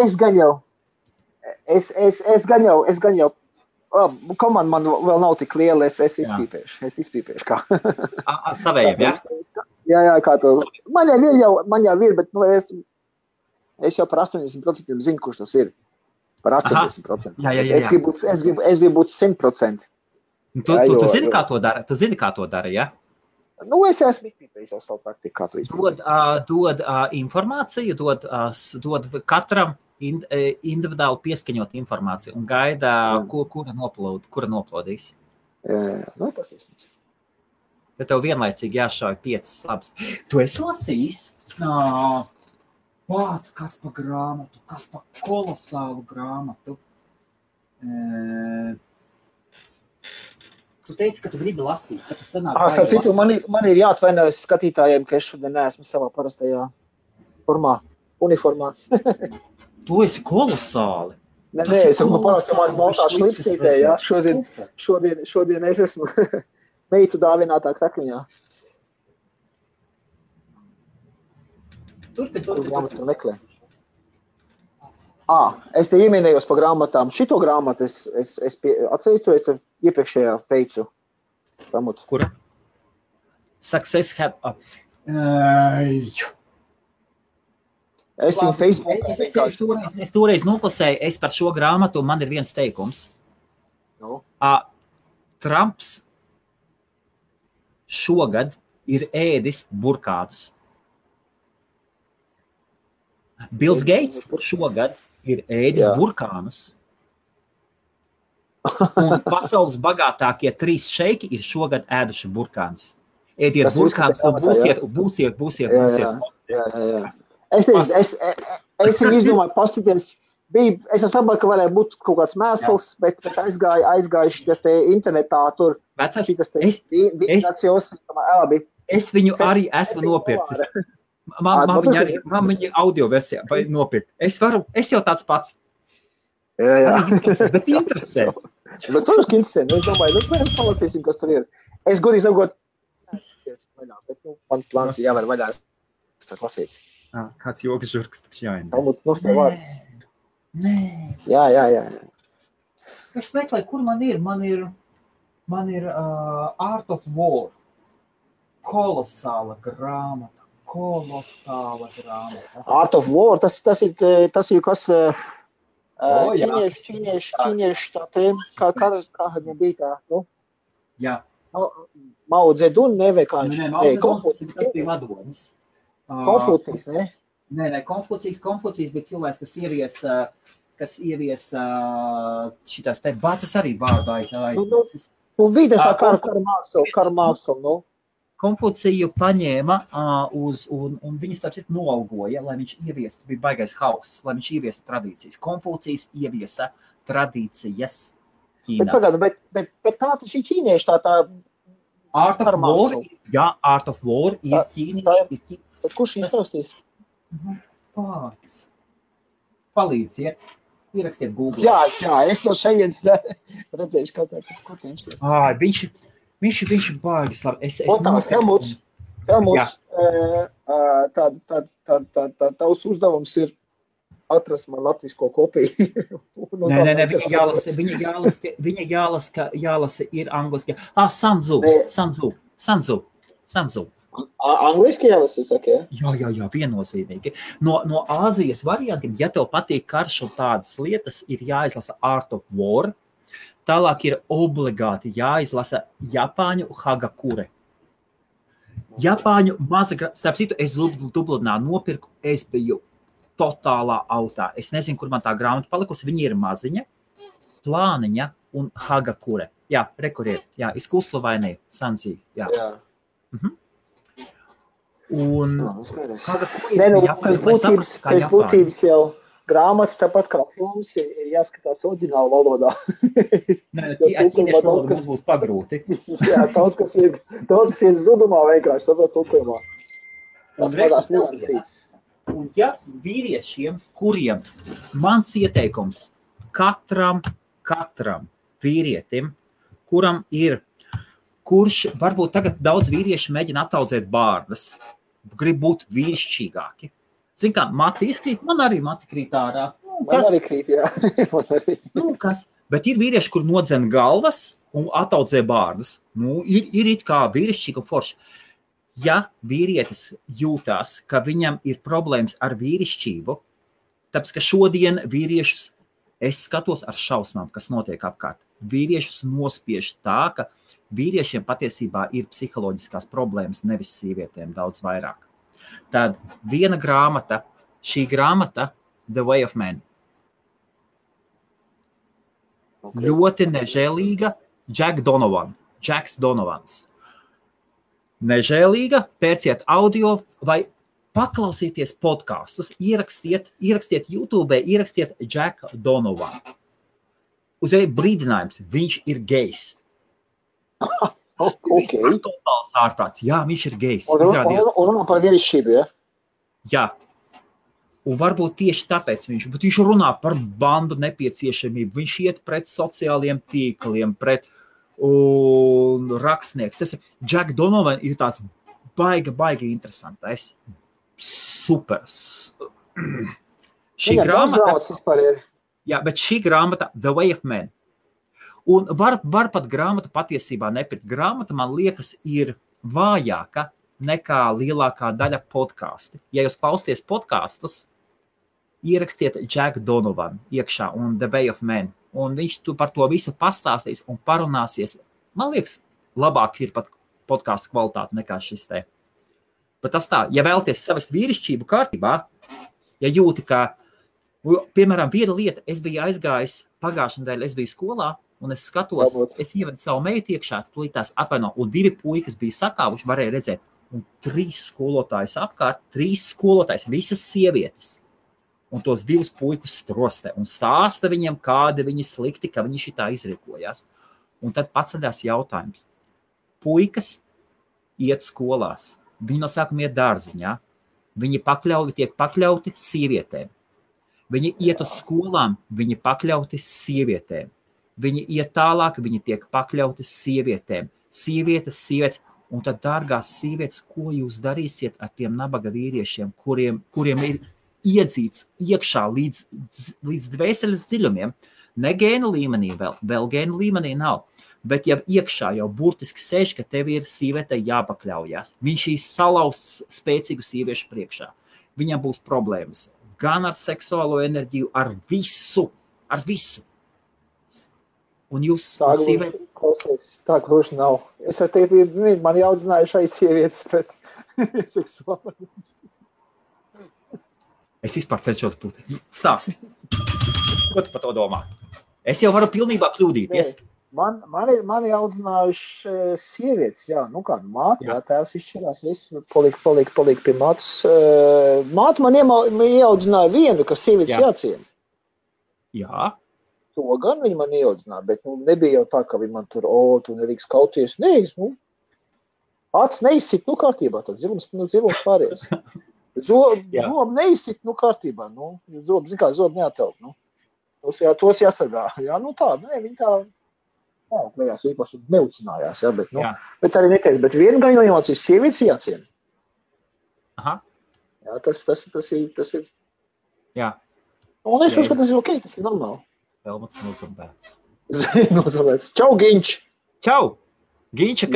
Es gan jau komanda man vēl nav tik liela, es izpīpēšu kā. Savējiem, jā? Jā, kā to. Man jau ir, bet es jau par 80% zinu, kurš tas ir. Par 80%. Jā. Es gribu būt 100%. Tu zini, kā to dara? Tu zini, kā to dara, jā? Nu, es esmu izpīpējis jau savu praktiku, kā to izpīpēt. Dod informāciju, dod katram individuāli pieskaņot informāciju un gaida, kura noplodīs. Nu, pasīsimies. Tad tev vienlaicīgi jāšauj 5 labs. Tu esi lasījis? Kas pa grāmatu, kas pa kolosālu grāmatu. Tu teici, ka tu gribi lasīt, ka tu sanāk lasīt. Man ir jāatvainojas skatītājiem, ka es šodien neesmu savā parastajā uniformā. Tu esi kolosāli. Nē, es esmu parastamās baltā šlipsītē, jā. Šodien es esmu meitu dāvinātā krakliņā. Turpin. Es te ieminējos par grāmatām. Šito grāmatu es atceries, to es iepriekšējā teicu. Kura? Success have... Es viņu Facebook. Es toreiz noklasēju, es par šo grāmatu, un man ir viens teikums. No. Trumps šogad ir ēdis burkātus. Bills Gates šogad ir ēdis burkānus. Un pasaules bagātākie 3 šeiki ir šogad ēduši burkānus. Ēdiet burkānus un būsiet. Jā. Es viņu izdomāju paskatīties. Es saprotu, ka varēja būt kaut kāds mēsls, bet aizgājuši tas te internetā tur. Es viņu arī esmu nopircis. Man viņa audio versijā vai nopirkt. Es jau tāds pats. Jā. Bet interesē. Bet, protams, ka interesē. Es domāju, mēs palasīsim, kas tur ir. Es godīgi sakot, bet man plāns ir jāvar vaļā lasīt. Kāds joks žurks taču jāind. Nē. Jā. Es meklēju, kur man ir. Man ir Art of War. Kolosāla grāmata. Art of War, tas ir kas ķīnieši tā tēma, kā viņam bija tā, nu? Jā. Mao Zedun, ne, vai kā viņš? Nē, Mao Zedun, tas bija vadonis. Konfūcijs, ne? Nē, Konfūcijs bija cilvēks, kas ievies šitās te bācas arī vārdu aiznesis. Nu, bija tas tā kara māksla, nu? Konfūciju paņēma un viņus tāpēc noalgoja, lai viņš ieviestu, bija baigais hauss, lai viņš ieviestu tradīcijas. Konfūcijas ieviesa tradīcijas Ķīnā. Bet tā taču ir ķīnieši, tā Art of War, jā, Art of War ir ķīnieši. Bet kurš viņus rakstīs? Pats. Palīdziet, ierakstiet Google. Jā, es no šejienes redzējuši, kā tā ir. Viņš ir baigis labi. Helmuts, tavs uzdevums ir atrast man latvisko kopiju. Nē, viņa jālasa ir angliski. Sanzu. Angliski jālasa, saka, ja? Jā, viennozīmīgi. No Āzijas variantiem, ja tev patīk karš un tādas lietas, ir jāizlasa Art of War. Tālāk ir obligāti jāizlasa Japāņu Hagakure. Japāņu starp citu, es Dublinā nopirku, es biju totālā autā. Es nezinu, kur man tā grāmata palikusi. Viņa ir maziņa, plāniņa un Hagakure. Jā, rekur ir. Jā, izkuslavainī, Sanzī. Jā. Un pēc būtības jau grāmatas tāpat kā filmas ir jāskatās oriģināla valodā. Nē, ķīniešu valoda būs pagrūti. Jā, daudz kas ir zudumā vienkārši, saprot tulkojumā. Tas vadās niansīts. Un ja vīriešiem, kuriem mans ieteikums katram vīrietim, kurš varbūt tagad daudz vīrieši mēģina attaudzēt bārdas, grib būt vīrišķīgāki. Zin kā, mati izkrīt, man arī mati krīt ārā. Man arī krīt, jā. Kas? Bet ir vīrieši, kur nodzen galvas un attaudzē bārdas. Ir it kā vīrišķīgi un forši. Ja vīrietis jūtās, ka viņam ir problēmas ar vīrišķību, tāpēc, ka šodien vīriešus, es skatos ar šausmām, kas notiek apkārt. Vīriešus nospiež tā, ka vīriešiem patiesībā ir psiholoģiskās problēmas, nevis sievietēm daudz vairāk. Tad viena grāmata, šī grāmata, The Way of Man. Okay. Ļoti nežēlīga, Jacks Donovans. Nežēlīga, pērciet audio vai paklausieties podkastus, ierakstiet YouTube, ierakstiet Jack Donovan. Uzreiz brīdinājums, viņš ir gejs. Okay. Totāls ārprāts. Jā, viņš ir gejs. Un runā par vīrišķību, ja? Jā. Un varbūt tieši tāpēc viņš runā par bandu nepieciešamību. Viņš iet pret sociāliem tīkliem, pret rakstnieks. Tas Jack Donovan ir tāds baigi interesantais. Super. Šī grāmata, The Way of Man. Un var pat grāmatu patiesībā nepirkt. Grāmata, man liekas, ir vājāka nekā lielākā daļa podkāsti. Ja jūs klausties podkastus, ierakstiet Jack Donovan iekšā un The Way of Man. Un viņš par to visu pastāstīs un parunāsies. Man liekas, labāk ir pat podkāstu kvalitāte nekā šis te. Bet tas tā, ja vēlaties savest vīrišķību kārtībā, ja jūti, ka, piemēram, viena lieta, es biju aizgājis pagājušajā nedēļā, es biju skolā, un es skatos, es ievedu savu meitu iekšā, tūlītās atvaino, un 2 puikas bija sakāvuši, varēja redzēt, un 3 skolotājus apkārt, 3 skolotājus, visas sievietes, un tos 2 puikus strostē, un stāsta viņiem, kādi viņi slikti, ka viņi šitā izrikojās. Un tad paceļās jautājums. Puikas iet skolās, viņi no sākuma iet dārziņā, viņi tiek pakļauti sievietēm. Viņi iet uz skolām, viņi pakļauti sievietēm. Viņi iet tālāk, viņi tiek pakļauti sievietēm. Sievietes, un tad, dārgās sievietes, ko jūs darīsiet ar tiem nabaga vīriešiem, kuriem ir iedzīts iekšā līdz dvēseles dziļumiem? Ne gēnu līmenī vēl gēnu līmenī nav. Bet jau iekšā jau burtiski sēž, ka tev ir sievietei jāpakļaujās. Viņš ir salauzts spēcīgu sieviešu priekšā. Viņam būs problēmas gan ar seksuālo enerģiju, ar visu. Un jūs klausies, tā gluži nav. Es ar tevi, man audzināju šai sievietes, bet seksuāli. Es vispār cenšos būt. Stāsti. Ko tu par to domā? Es jau varu pilnībā kļūdīties. Mani audzinājuši sievietes, jā, māte, jā, tēvs izšķirās, viss palika pie mātes. Māte man ieaudzināja vienu, ka sievietes jāciena. Jā. To gan viņi man ieaudzināja, bet nebija jau tā, ka viņi man tur, tu nedrīkst kauties. Nē, acis neizsit, kārtībā, tad zilums pāries. Zobu neizsit, kārtībā, zobu neatraukt, tos jāsargā. Jā, tā, viņi tā, klējās īpaši neucinājās, jā, bet arī neteikt, bet vienu gan jāmācīs sievietes jāciena. Aha. Jā, tas ir. Jā. Un es uzskatu, tas ir ok, tas ir normāli. Helmuts nozambēts. Nozambēts. Čau, Ginč! Čau! Ginča,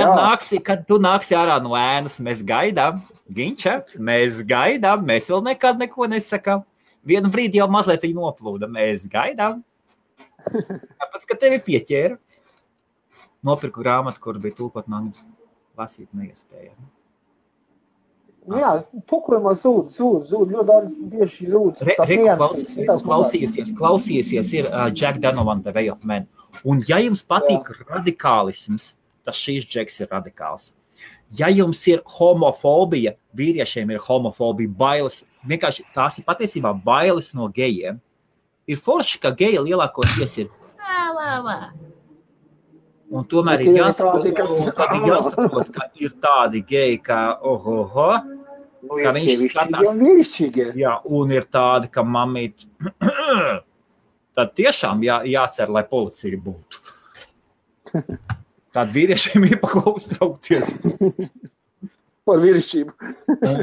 kad tu nāksi ārā no ēnas, mēs gaidām. Ginča, mēs gaidām, mēs vēl nekad neko nesakām. Vienu brīdi jau mazliet viņa noplūda, mēs gaidām. Tāpēc, ka tevi pieķēra. Nopirku grāmatu, kur bija tulkot man lasīt neiespēja. Jā, tulkojumā zūd, ļoti bieži zūd. Klausīsies ir Jack Donovan, The Way of Man. Un ja jums patīk radikālisms, tas šīs Jacks ir radikāls. Ja jums ir homofobija, vīriešiem ir homofobija, bailes, vienkārši tās ir patiesībā bailes no gejiem. Ir forši, ka geji lielākoties ir un tomēr ir jāsaprot, ka ir tādi geji, ka ka viņš skatās. Jā, un ir tādi, ka mamīt, tad tiešām jācer, lai policija būtu. Tādi vīriešiem ir pa ko uztraukties. Par vīrišķību.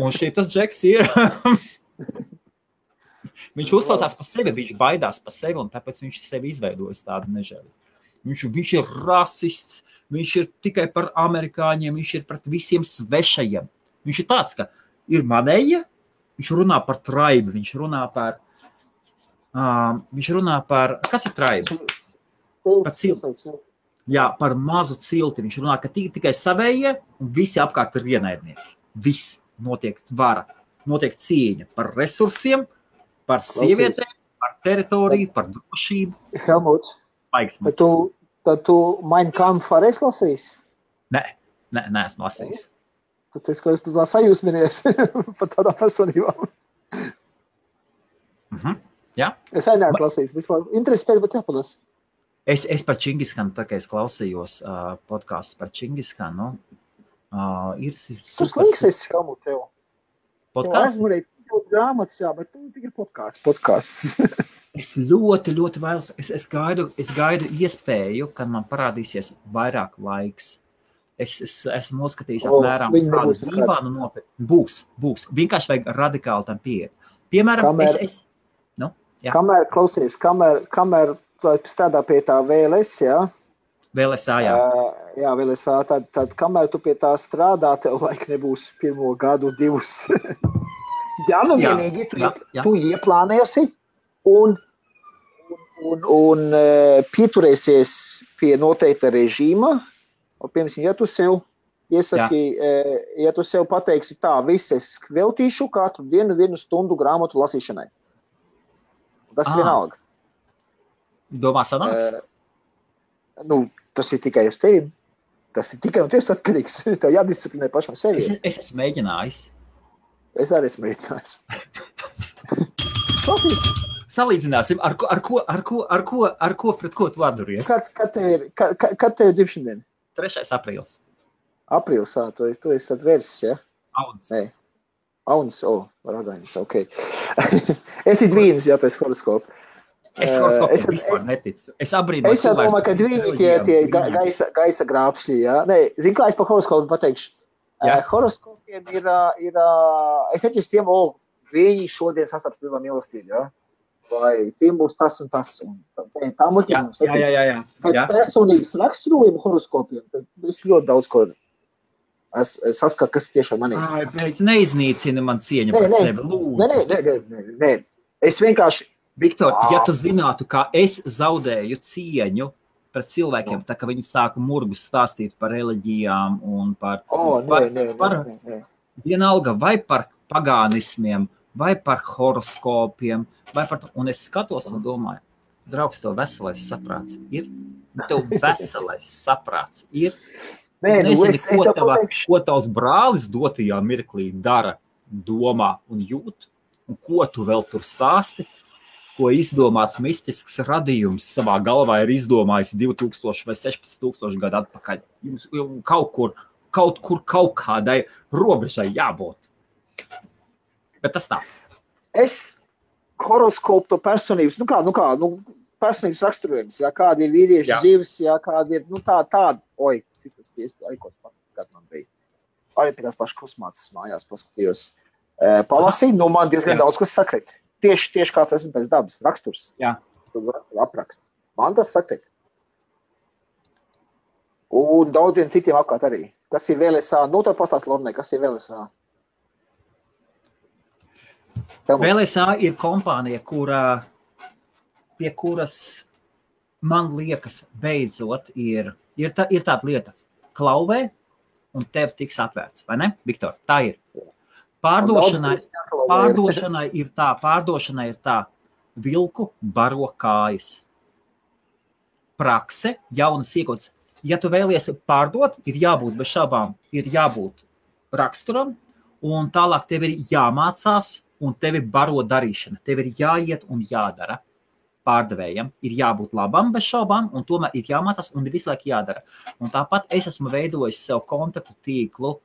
Un šitas Džeks ir. Viņš uztraucās par sevi, viņš baidās par sevi, un tāpēc viņš sevi izveidojis tādu nežēli. Viņš ir rasists, viņš ir tikai par amerikāņiem, viņš ir pret visiem svešajiem. Viņš ir tāds, ka ir manēja, viņš runā par traibu, viņš runā par kas ir traiba? Par cilti. Jā, par mazu cilti. Viņš runā, ka tikai savējie un visi apkārt ir ienaidnieki. Viss notiek vara, notiek cīņa par resursiem, par sievietēm, par teritoriju, par drošību. Helmut, tad tu Mein Kampf arī esi lasījis? Nē, esmu lasījis. Tad es tu tā sajūsminies par tādām personībām. Jā. Es arī neesmu lasījis. Vispār interesi pēc, bet jāpalas. Es par Čingiskanu, tā kā es klausījos podcastu par Čingiskanu. Tu slinks esi, Helmut, tev. Podcasts? Tev grāmatas, jā, bet tu tikai podcasts. Es ļoti vēlos, es gaidu iespēju, kad man parādīsies vairāk laiks. Es esmu noskatījis apmēram kādu Dībānu nopirkt. Būs. Vienkārši vajag radikāli tam pieiet. Piemēram, Kamēr strādā pie tā VLS, jā? VLSA, jā. Jā, VLSA, tad kamēr tu pie tā strādā, tev laik nebūs 1 gadu, 2. Jā, nu vienīgi tu ieplānēsi un pieturēsies pie noteikta režīma. Piemēram, ja tu sev iesaki, ja tu sev pateiksi tā, es veltīšu katru dienu 1 stundu grāmatu lasīšanai. Tas vienalga. Domā sanāks? Tas ir tikai uz tevi. Tas ir tikai un tieši atkarīgs. Tev jādisciplinē pašam sevi. Es esmu mēģinājis. Es arī esmu mēģinājis. Salīdzināsim, ar ko pret ko tu atduries? Kad tev ir dzimšana diena? 3. aprīlis. Aprīlis, tu esi atvērsis, ja? Auns. Nē. Auns, ragainis, ok. Esi dvīnis, jā, pēc horoskopa. Es horoskopiem vispār neticu. Es abrīnoju cilvēks. Es domāju, ka dvīņi tie gaisa grābšļi, jā. Nē, zinu, kā es par horoskopu pateikšu. Horoskopiem ir es neticu tiem, viņi šodien sastaps lielā mīlestību, jā. Vai tiem būs tas un tas. Tā muļķiem. Jā. Personības raksturojumu horoskopiem, tad es ļoti daudz ko es saskatu, kas tiešām manī. Pēc neiznīcina man cieņa par sevi, lūdzu. Nē. Es vienkārši... Viktor, ja tu zinātu, kā es zaudēju cieņu pret cilvēkiem, tā ka viņi sāka murgus stāstīt par reliģijām un par vienalga vai par pagānismiem, vai par horoskopiem, un es skatos un domāju, draugs, tev veselais saprāts ir? Tev veselais saprāts ir? Nezini, ko tavs brālis dotajā mirklī dara, domā un jūt, un ko tu vēl tur stāsti, ko izdomāts mistisks radījums savā galvā ir izdomājis 2000 vai 16,000 gadu atpakaļ. Jums kaut kur kaut kādai robežai jābūt. Bet tas tā. Es horoskopu to personības, personības raksturojums, jā, kādi ir vīrieši zivs, jā, kādi ir, tādi, tas bija aikos pasakāt man bija. Arī pie tās pašas krusmācas mājās paskatījos. Palasīju, man diezgan daudz, kas sakrit. Tieši kāds esmu pēc dabas, raksturs. Jā. Apraksts. Man tas sakrit. Un daudziem citiem apkārt arī. Kas ir VLSA? Tad pastāst Lornai, kas ir VLSA? VLSA ir kompānija, pie kuras, man liekas, beidzot ir tāda lieta. Klauvē un tev tiks atvērts, vai ne, Viktor? Tā ir. Pārdošanai ir tā, vilku baro kājas. Prakse, jaunas iegotas. Ja tu vēlies pārdot, ir jābūt bez šaubām, ir jābūt raksturam, un tālāk tev ir jāmācās, un tev ir baro darīšana. Tev ir jāiet un jādara pārdevējam. Ir jābūt labam bez šaubām, un tomēr ir jāmācās, un ir visu laiku jādara. Un tāpat es esmu veidojis sev kontaktu tīklu,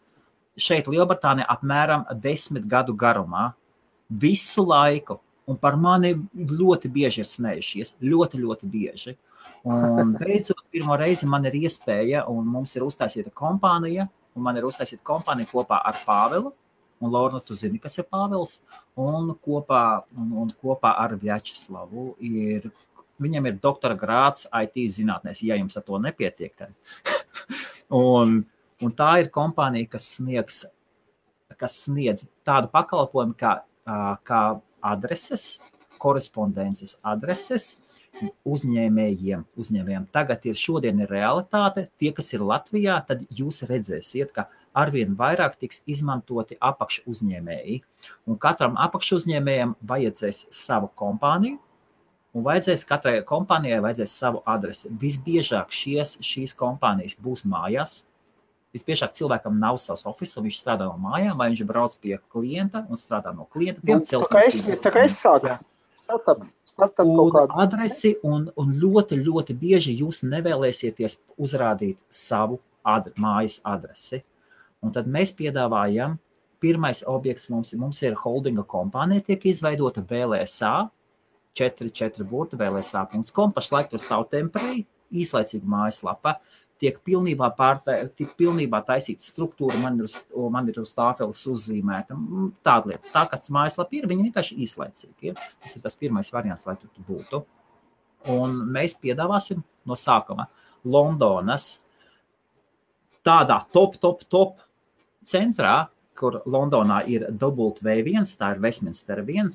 šeit Lielbritānijā apmēram 10 gadu garumā, visu laiku, un par mani ļoti bieži ir smējušies, ļoti bieži. Un beidzot, pirmo reizi man ir iespēja, un mums ir uztaisīta kompānija, kopā ar Pāvelu, un Lorna, tu zini, kas ir Pāvels, un kopā ar Vjačeslavu viņam ir doktora grāds IT zinātnēs, ja jums ar to nepietiek. Un tā ir kompānija, kas sniedz tādu pakalpojumu kā adreses, korespondences adreses uzņēmējiem. Tagad šodien ir realitāte. Tie, kas ir Latvijā, tad jūs redzēsiet, ka arvien vairāk tiks izmantoti apakšuzņēmēji. Un katram apakšuzņēmējam vajadzēs savu kompāniju, un katrai kompānijai vajadzēs savu adresi. Visbiežāk šīs kompānijas būs mājās. Visbiežāk cilvēkam nav savs office, un viņš strādā no mājām, vai viņš brauc pie klienta un strādā no klienta. Tā kā es sāku. Startup kaut kādu. Adresi, un ļoti bieži jūs nevēlēsieties uzrādīt savu mājas adresi. Un tad mēs piedāvājam, pirmais objekts mums ir holdinga kompānija, tiek izveidota VLSA, 4 burti, VLSA.com, pašlaik tur stāv temporī, īslaicīga mājaslapa. tiek pilnībā taisīta struktūra, man ir uz tāfeles uzzīmēta. Tāda lieta. Tā, kāds mājaslapa ir, viņi vienkārši īslaicīgi ir. Tas ir tas pirmais variants, lai tu būtu. Un mēs piedāvāsim no sākuma Londonas tādā top centrā, kur Londonā ir W1, tā ir Westminster 1,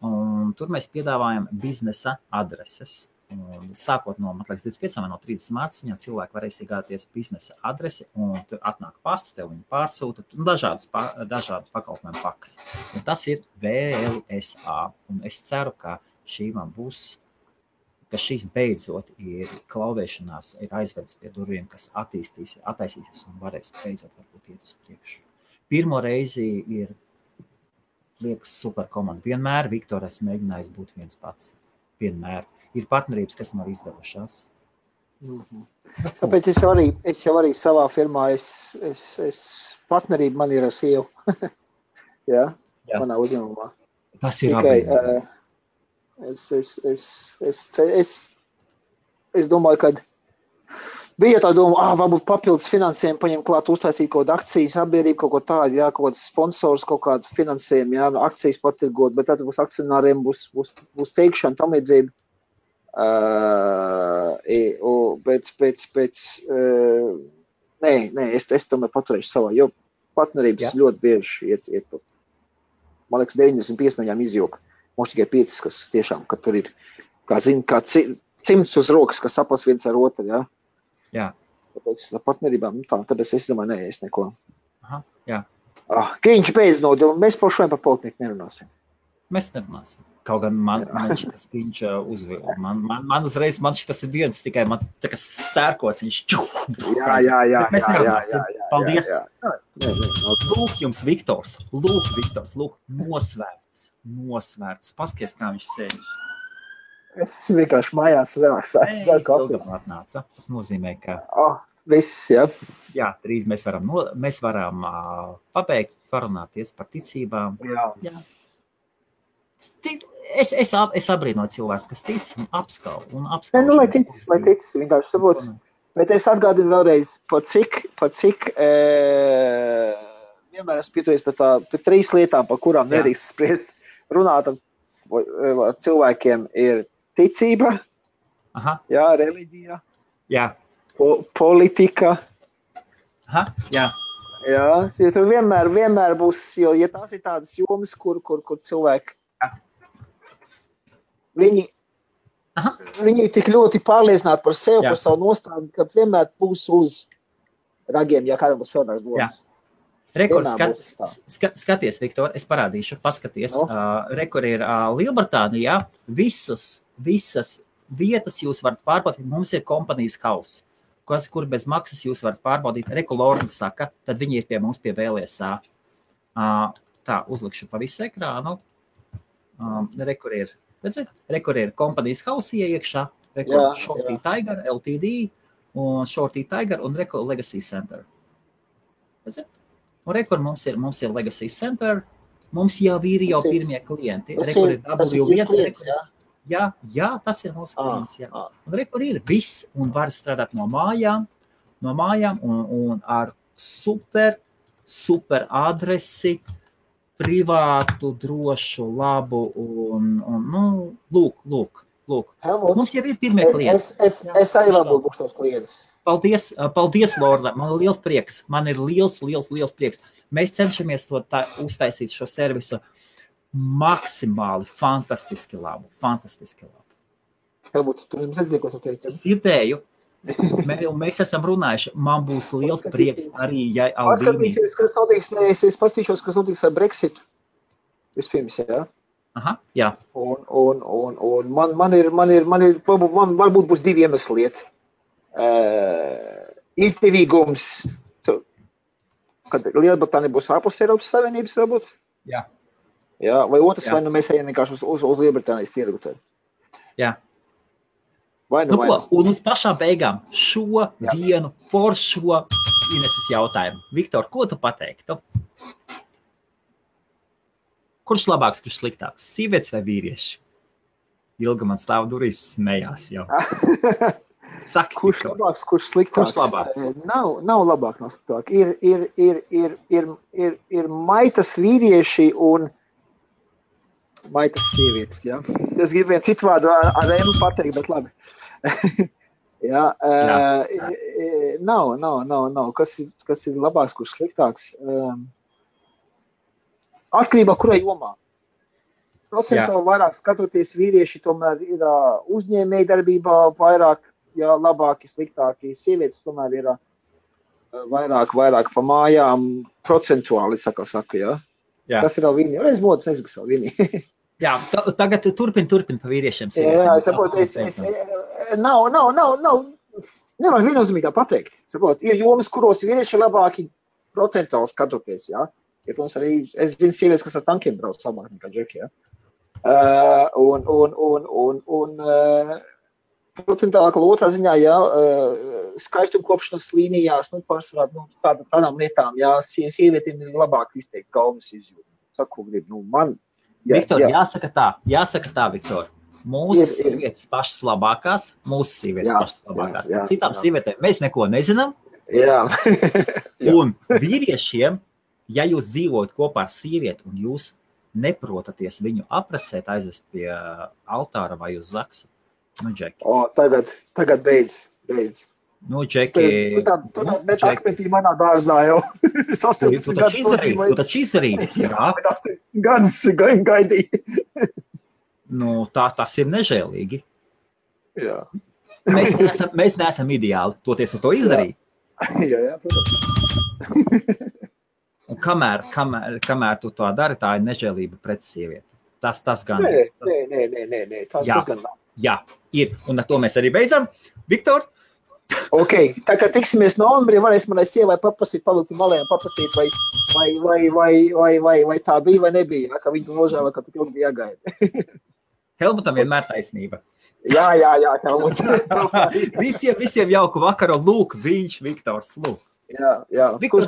un tur mēs piedāvājam biznesa adreses. Un sākot no, man liekas, 25 vai no 30 mārciņā cilvēki varēs iegādāties biznesa adresi, un tur atnāk pasts, tev viņi pārsūta, un dažādas pakalpojumu pakas. Un tas ir VLSA, un es ceru, ka ka šīs beidzot ir klauvēšanās, ir aizvedis pie durvīm, kas attaisīsies un varēs beidzot varbūt iet uz priekšu. Pirmo reizi ir, liekas, super komanda. Vienmēr Viktor esmu mēģinājis būt viens pats. Vienmēr. Ir partnerības, kas nav izdevušās. Tāpēc es jau arī savā firmā, partnerība man ir ar sievu. Jā, manā uzņēmumā. Tas ir abi. Es domāju, ka bija tā doma, varbūt papildus finansējumu paņemt klāt, uztaisīt kaut kādu akcijas sabiedrību, kaut ko tādu, jā, kaut kāds sponsors, kaut kādu finansējumu, jā, akcijas patirgot, bet tad būs akcionāriem, būs teikšana, tam līdzība. Es tomēr paturēšu savā, jo partnerības ļoti bieži iet man liekas, 95 no viņām izjūka. Mums tikai 5, kas tiešām, ka tur ir, kā cimds uz rokas, kas sapas viens ar otru, jā. Jā. Tāpēc partnerībām, tāpēc es domāju, es neko. Aha, jā. Kiņš beidz mēs šodien par politiku nerunāsim. Mēs nerunāsim. Kaut gan man šitas Kiņš uzvilda. Man uzreiz, šitas ir viens, tikai man tā kā sērkots, viņš Jā. Mēs nerunāsim. Paldies. Lūk jums, Viktors. Lūk, nosvērts. Paskaties, kā viņš sēž. Es vienkārši mājās relaksēju. Ilgam atnāca. Tas nozīmē, ka... Viss, jā. Jā, drīz mēs varam pabeigt, parunāties par ticībām. Jā. Es abrīnoju cilvēks, kas tic un apskauž. Lai tic, vienkārši sabūt. Bet es atgādinu vēlreiz, par cik vienmēr esmu pietuvies par 3 lietām, par kurām nedrīkst spriest. Runāt ar cilvēkiem ir ticība, jā, reliģija, politika. Jā. Jā, jo tur vienmēr būs, jo ja tās ir tādas jomas, kur cilvēki, viņi tik ļoti pārliecināti par sevi, par savu nostāju, kad vienmēr būs uz ragiem, ja kādam būs savādāks domas. Rekord, skaties, Viktor, es parādīšu, paskaties. Rekord ir Lielbritānijā, visas vietas jūs varat pārbaudīt, mums ir kompanijas house, kur bez maksas jūs varat pārbaudīt. Rekord Lorna saka, tad viņi ir pie mums pie VLSA. Tā, uzlikšu pa visu ekrānu. Rekord ir, redzēt, rekord ir kompanijas house iekšā, rekord Shorty Tiger, LTD, un Shorty Tiger un rekord Legacy Center. Redzēt? Un rekord mums ir Legacy Center, mums jau ir pirmie klienti. Rekord ir W1. Jā, tas ir mūsu klients. Jā. Un rekord ir viss, un var strādāt no mājām un ar super adresi, privātu, drošu, labu un lūk. Helmut, mums jau ir pirmie klienti. Es arī varbūt būšu tos klientus. Paldies, Lorda. Man ir liels prieks. Man ir liels prieks. Mēs cenšamies to uztaisīt šo servisu maksimāli fantastiski labu. Helmut, tu jums nezinu, ko tu teici? Es dzirdēju. Mēs esam runājuši. Man būs liels prieks arī, ja Aldīnī. Es pastīšos, kas notiks ar Brexitu. Vispirms, jā. Aha, jā. Un man varbūt būs 2 iemesli lieti. Izdevīgums, kad Lielbritānija būs ārpus Eiropas Savienības, varbūt? Jā. Jā, vai otrs, vai mēs ejam vienkārši uz Lielbritānijas tirgu? Jā. Vai nu ko, un uz pašām beigām šo vienu foršo Ineses jautājumu. Viktor, ko tu pateiktu? Kurš labāks, kurš sliktāks? Sievietes vai vīrieši? Ilga man stāv durvis smējās jau. Saki, kurš labāks, kurš sliktāks? Kurš labāks? Nav labāk, nav sliktāk. Ir maitas vīrieši un maitas sievietes, ja? Es gribu vienu citu vārdu ar M pateikt, bet labi. Ja, nav. Kas ir labāks, kurš sliktāks? Atkarībā, kurai jomā. Procentuāli vairāk skatoties vīrieši tomēr ir uzņēmēji darbībā vairāk, ja labāki, sliktāki. Sievietes tomēr ir vairāk pa mājām procentuāli, saka, ja. Jā. Kas ir vēl viņi? Es modas nezinu, kas vēl viņi. Jā, tagad turpin pa vīriešiem. Jā, es saprotu, nevar viennozīmīgi tā pateikt. Saprotu, ir jomas, kuros vīrieši ir labāki procentuāli skatoties, jā. Ja, protams, arī es zinu sievietes, kas ar tankiem brauc labāk nekā džeki, jā. Procentuāli otrā ziņā, jā, skaistumkopšanas līnijās, pārsvarā, tādām lietām, jā, sievietiem ir labāk izteikt galvas izjūtu. Saku, grib, man. Jā, Viktor, jāsaka tā, Viktor. Mūsu sievietes pašas labākās, Citām sievietēm mēs neko nezinām. Jā. Un vīriešiem, ja jūs dzīvojat kopā ar sievieti un jūs neprotaties viņu aprecēt, aizvest pie altāra vai uz zaksu, Džeki. Tagad beidz. Džeki. Tu tā bet akmetī manā dārzā jau. Tu taču izdarīji. Jā. 8 gadus gaidīji. Tas ir nežēlīgi. Jā. Mēs neesam ideāli, toties ar to izdarīt. Jā, protams. Un kamēr tu to dari, tā ir nežēlība pret sievieti. Tas gan. Nē. Tas gan nav. Jā, ir. Un ar to mēs arī beidzam. Viktor? Ok, tā kā tiksimies novembrī, varēs manai sievai paprasīt, palikt malējiem, paprasīt, vai tā bija vai nebija, ka viņi tu nožēla, ka tik ilgi bija jāgaida. Helmutam vienmēr taisnība. Jā, Helmuts. Visiem jauku vakaru, lūk, viņš, Viktors, lūk. Jā. Viktors,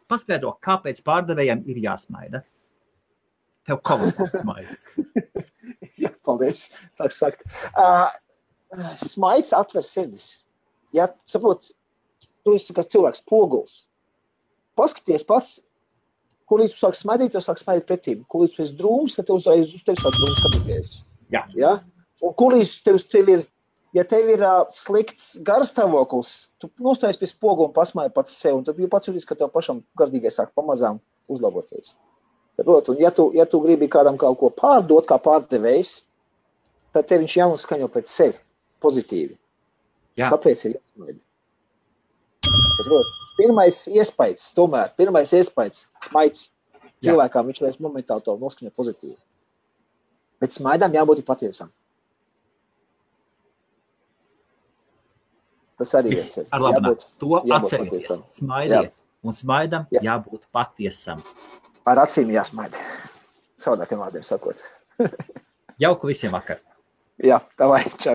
paskaidro, kāpēc pārdevējiem ir jāsmaida? Tev kolosāls smaids. Jā, paldies, sāku sakt. Smaids atver sirdis. Ja, saprot, tu esi kā cilvēks poguls. Paskaties pats, kur līdz tu sāk smaidīt, tu sāk smaidīt pretīm. Kur līdz tu esi drūms, tad uz tevi sāk drūms skatīties. Jā. Ja? Un kur līdz tev ir, ja tev ir slikts garstāvoklis, tu nostājies pie spogu un pasmāji pats sev, un tu pats jūties, ka tev pašam garīgai sāk pamazām uzlaboties. Saprot, un ja tu gribi kādam kaut ko pārdot, kā pārdevējs, tad tev viņš jānoskaņo pēc sevi. Pozitīvi. Jā. Tāpēc ir jāsmaida. Pirmais iespējas, smaids cilvēkām, viņš vairs momentāli to noskaņo pozitīvi. Bet smaidām jābūt patiesam. Tas arī ir. Ar labāk. To atcerieties. Smaidiet. Un smaidam jābūt patiesam. Ar acīm jāsmaida. Savādākiem vārdiem sakot. Jauku visiem vakar. Jā, tā vai. Čau.